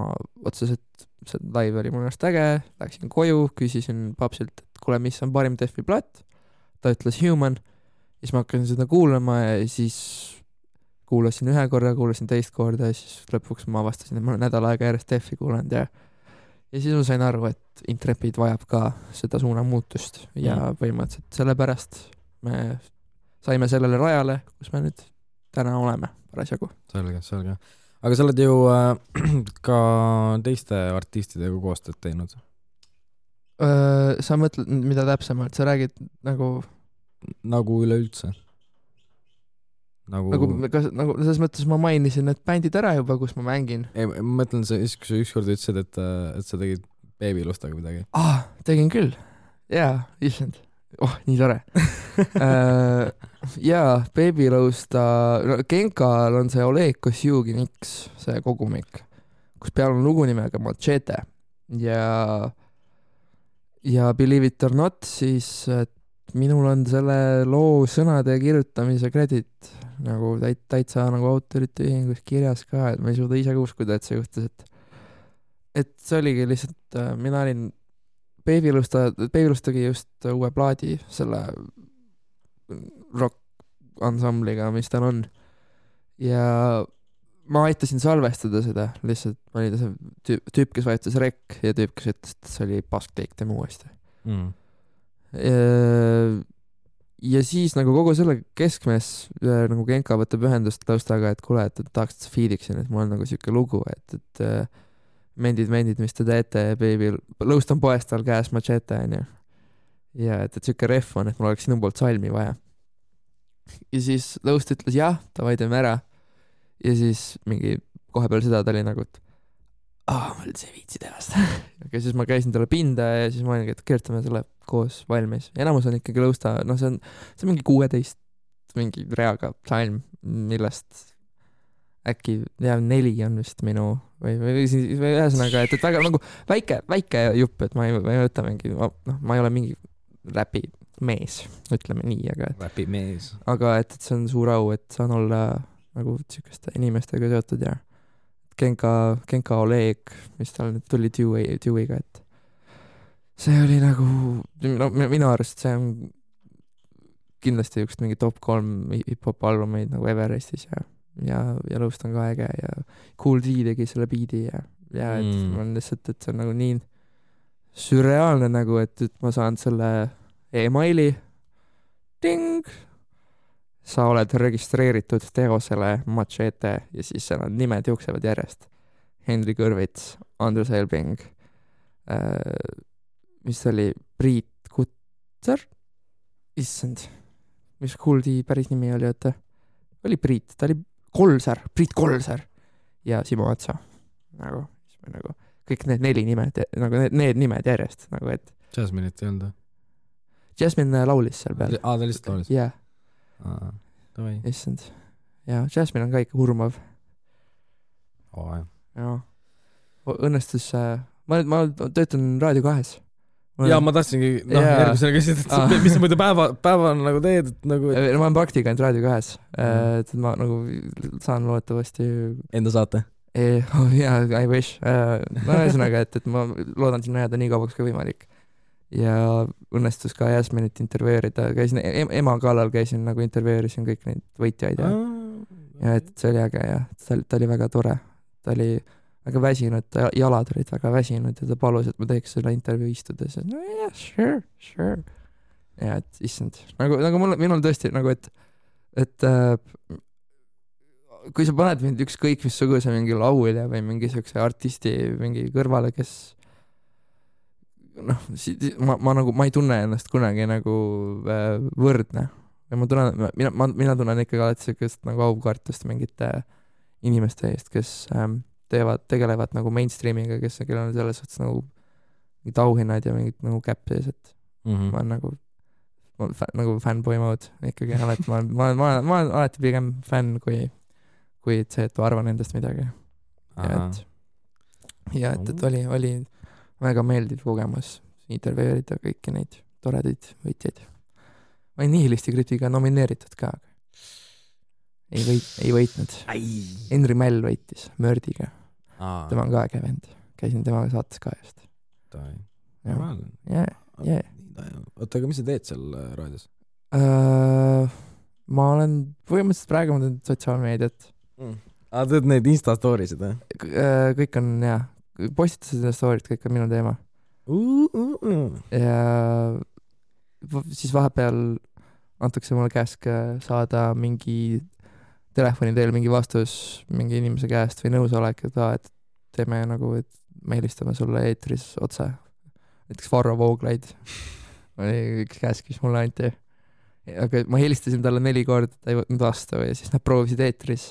B: otseselt see live oli minu arust äge, läksin koju, küsisin papsilt, et kuule, mis on parim Deathi plaat, ta ütles Human, siis ma hakkasin seda kuulama ja siis kuulasin ühe korra, kuulasin teist korda ja siis lõpuks ma avastasin, et ma olen nädal aega järjest Deathi kuulanud ja siis ma sain aru, et Intrepid vajab ka seda suunamuutust ja põhimõtteliselt sellepärast me saime sellele rajale, kus me nüüd täna oleme parasjagu.
A: Selge. Aga sa oled ju ka teiste artistidega koostööd teinud?
B: Sa mõtled, mida täpsemalt? Sa räägid nagu
A: üleüldse? Nagu
B: selles mõttes ma mainisin need bändid ära juba, kus ma mängin.
A: Ei, ma mõtlen, kui sa ükskord ütlesid, et sa tegid Babylustaga midagi.
B: Tegin küll. Jaa, issand. Nii tore. Jaa, Babylusta, Genkal on see Oleg Kosjugin X, see kogumik, kus peal on lugu nimega Machete ja Believe It or Not, siis minul on selle loo sõnade kirjutamise kredit nagu täitsa nagu autorite ühingus kirjas ka, et ma ei suuda ise uskuda, et see juhtus, et see oligi lihtsalt, mina olin Babylustagi just uue plaadi selle rock ansambliga, mis tal on ja ma aitasin salvestada seda, lihtsalt ma olin see tüüp, kes vajutas rek ja tüüp, kes ütles, et see oli paskteik tema uuesti ja siis nagu kogu selle keskmes nagu Genka võtab ühendust Laustaga, et kuule, et tahaks, et sa feediksin, et mul on nagu siuke lugu, et mendid, mis te teete, baby, Laust on poest tal käes Machete, onju. Ja et siuke ref on, et mul oleks sinu poolt salmi vaja. Ja siis Laust ütles jah, davai teeme ära. Ja siis mingi kohe peale seda ta oli nagu, et ma üldse ei viitsi teha seda. Ja siis ma käisin talle pinda ja siis ma olin, et kirjutame selle koos valmis. Enamus on ikkagi Lausta, see on mingi 16 mingi reaga salm, millest äkki 4 on vist minu või ühesõnaga, et väga nagu väike jupp, et ma ei võta mingi, ma ei ole mingi räpi mees, ütleme nii,
A: räpi mees.
B: Aga et see on suur au, et saan olla nagu siukeste inimestega seotud ja Genka Oleg, mis tal nüüd tuli Dewey'ga, et see oli nagu, minu arust see on kindlasti üks mingi top 3 hip-hop albumeid nagu Everestis ja Laust on ka äge ja Cool D tegi selle biidi ja et ma on lihtsalt, et see on nagu nii sürreaalne nagu, et ma saan selle emaili ding, sa oled registreeritud teosele Machete ja siis seal on nimed jooksevad järjest. Henry Kõrvits, Andrus Elbing, mis oli Priit Kutser, issand, mis Cool D päris nimi oli, et oli Priit, ta oli Priit Kolser ja Simo Atsa, nagu kõik need 4 nimed, nagu need nimed järjest, nagu et
A: Jasmine'it ei olnud?
B: Jasmine laulis seal peal.
A: Ta lihtsalt laulis?
B: Jah. issand. Ja Jasmine on ka ikka hurmav. Ja. Õnnestus, ma töötan Raadio 2.
A: Ja ma tahtsingi, järgmisena küsida, et mis sa muidu päeva nagu teed, et nagu...
B: Ma olen praktikant Raadio 2, et ma nagu saan loodetavasti...
A: Enda saate?
B: Jaa, I wish. No ühesõnaga, et ma loodan sinna jääda nii kaubaks kui võimalik. Ja õnnestus ka Jasminit intervjueerida, käisin ema kallal, nagu intervjueerisin kõik neid võitjaid ja et see oli äge ja ta oli väga tore. Ta oli väga väsinud, jalad olid väga väsinud ja ta palus, et ma teeks selle intervjuu istudes. No yeah, sure. Ja et issand, nagu minul tõesti nagu, et kui sa paned mind ükskõik missuguse mingi laulja või mingi siukse artisti mingi kõrvale, kes ma ei tunne ennast kunagi nagu võrdne. Ja mina tunnen ikkagi alati siukest nagu aukartust mingite inimeste eest, kes tegelevad nagu mainstreamiga, kellel on selles suhtes nagu mingid auhinnad ja mingid nagu käpp sees, et ma olen nagu fanboy mode ikkagi alati, ma olen alati pigem fänn kui see, et ma arvan endast midagi. Ja et oli väga meeldiv kogemus intervjueerida kõiki neid toredaid võitjaid. Ma olin Nihilisti kritiga nomineeritud ka. Ei võitnud. Henri Mäll võitis Mördiga. Tema on ka äge vend. Käisin temaga saates ka just.
A: Oota, aga mis sa teed seal raadios?
B: Ma olen põhimõtteliselt praegu ma teen sotsiaalmeediat.
A: Teed neid Insta-stoorisid, või?
B: Kõik on, jah. Postitasid ja stoorid, kõik on minu teema. Ja siis vahepeal antakse mulle käsk saada mingi telefoni teel mingi vastus mingi inimese käest või nõusolek, et teeme nagu, et me helistame sulle eetris otse. Näiteks Varro Vooglaid oli üks käsk, mis mulle anti. Aga ma helistasin talle 4 korda, ta ei võtnud vastu ja siis nad proovisid eetris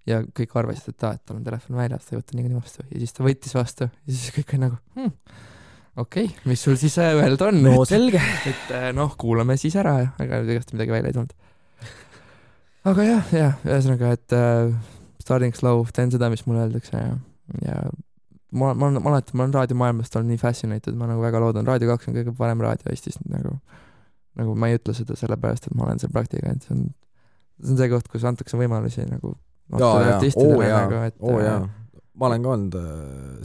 B: ja kõik arvasid, et tal on telefon väljas, ta ei võtta nii vastu ja siis ta võttis vastu ja siis kõik oli nagu okei, mis sul siis öelda on?
A: No selge.
B: Et kuulame siis ära ja aga igast midagi välja ei tulnud. Aga jah, ühesõnaga, et starting slow, teen seda, mis mulle öeldakse ja ma olen raadiomaailmast olnud nii fascinated, ma nagu väga loodan, Raadio 2 on kõige parem raadio Eestis, nagu ma ei ütle seda sellepärast, et ma olen seal praktikant, see on see koht, kus antakse võimalusi nagu
A: artistidele. Ma olen ka olnud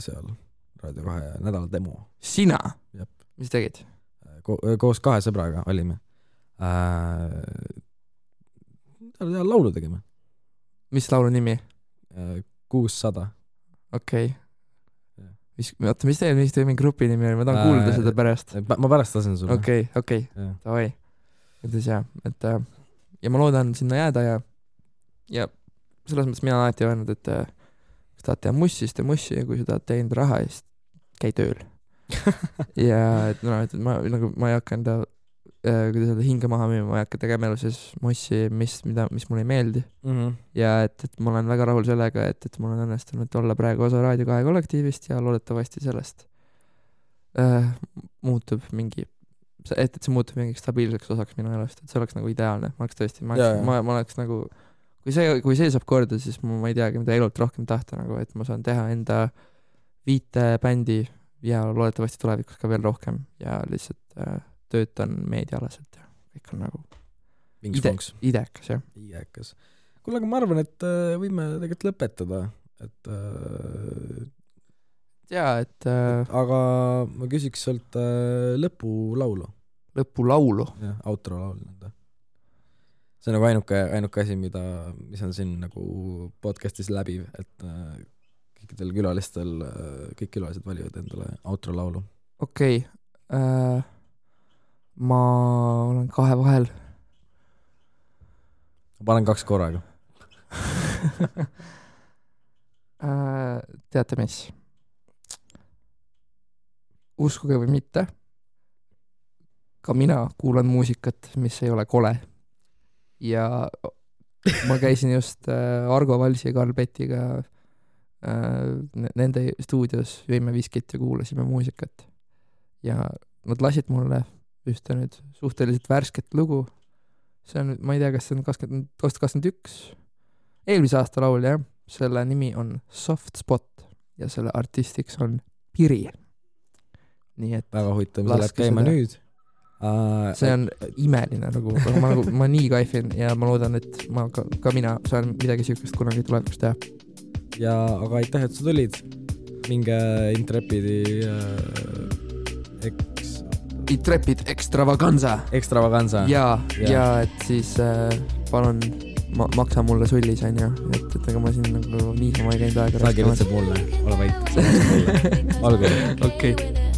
A: seal Raadio 2 nädala demo.
B: Sina? Mis tegid?
A: Koos 2 sõbraga olime. Laulu tegime.
B: Mis laulu nimi?
A: 600.
B: Okei. Oota, mis teie mingi grupi nimi oli? Ma tahan kuulda seda pärast.
A: Ma pärast lasen sulle.
B: Okei. Davai. Ütles jah, et ja ma loodan sinna jääda ja selles mõttes mina alati öelnud, et kui tahad teha mussi, siis tee mussi ja kui sa tahad teenida raha, siis käi tööl. Ja et ma ei hakka enda kuidas öelda, hinge maha müüma, ma ei hakka tegema elu siis mussi, mis mulle ei meeldi. Ja et ma olen väga rahul sellega, et mul on õnnestunud olla praegu osa Raadio 2 kollektiivist ja loodetavasti sellest muutub mingi, et see muutub mingi stabiilseks osaks minu elust, et see oleks nagu ideaalne. Ma oleks tõesti, ma oleks nagu, kui see saab korda, siis ma ei teagi, mida elult rohkem tahta, nagu, et ma saan teha enda 5 bändi ja loodetavasti tulevikus ka veel rohkem ja lihtsalt töötan meediaalaselt ja kõik on nagu idekas, jah. Idekas.
A: Kuule, aga ma arvan, et võime tegelikult lõpetada, et aga ma küsiks sult lõpulaulu.
B: Lõpulaulu?
A: Jah, outro-laulu. See on nagu ainuke asi, mis on siin nagu podcastis läbiv, et kõikidel külalistel, kõik külalised valivad endale outro-laulu.
B: Okei. Ma olen 2 vahel.
A: Ma panen 2 korraga.
B: Teate mis? Uskuge või mitte, ka mina kuulan muusikat, mis ei ole kole. Ja ma käisin just Argo Valsi ja Karl Petiga nende stuudios, jõime viskit ja kuulasime muusikat. Ja nad lasid mulle ühte nüüd suhteliselt värsket lugu see on, ma ei tea, kas see on 2021, eelmise aasta laul, jah. Selle nimi on Soft Spot ja selle artistiks on Piri. Nii et
A: väga huvitav, see läheb käima nüüd.
B: See on imeline nagu, ma nii kaifin ja ma loodan, et ma ka mina saan midagi sihukest kunagi tulevikus teha.
A: Ja aga aitäh, et sa tulid. Minge Intrepidi
B: Intrepid Extravaganza. Ja et siis palun maksa mulle sullis, on ju, et ega ma siin nagu niisama ei käinud aega.
A: Ta kirjutab mulle, ole vait. Olgu.
B: Okei.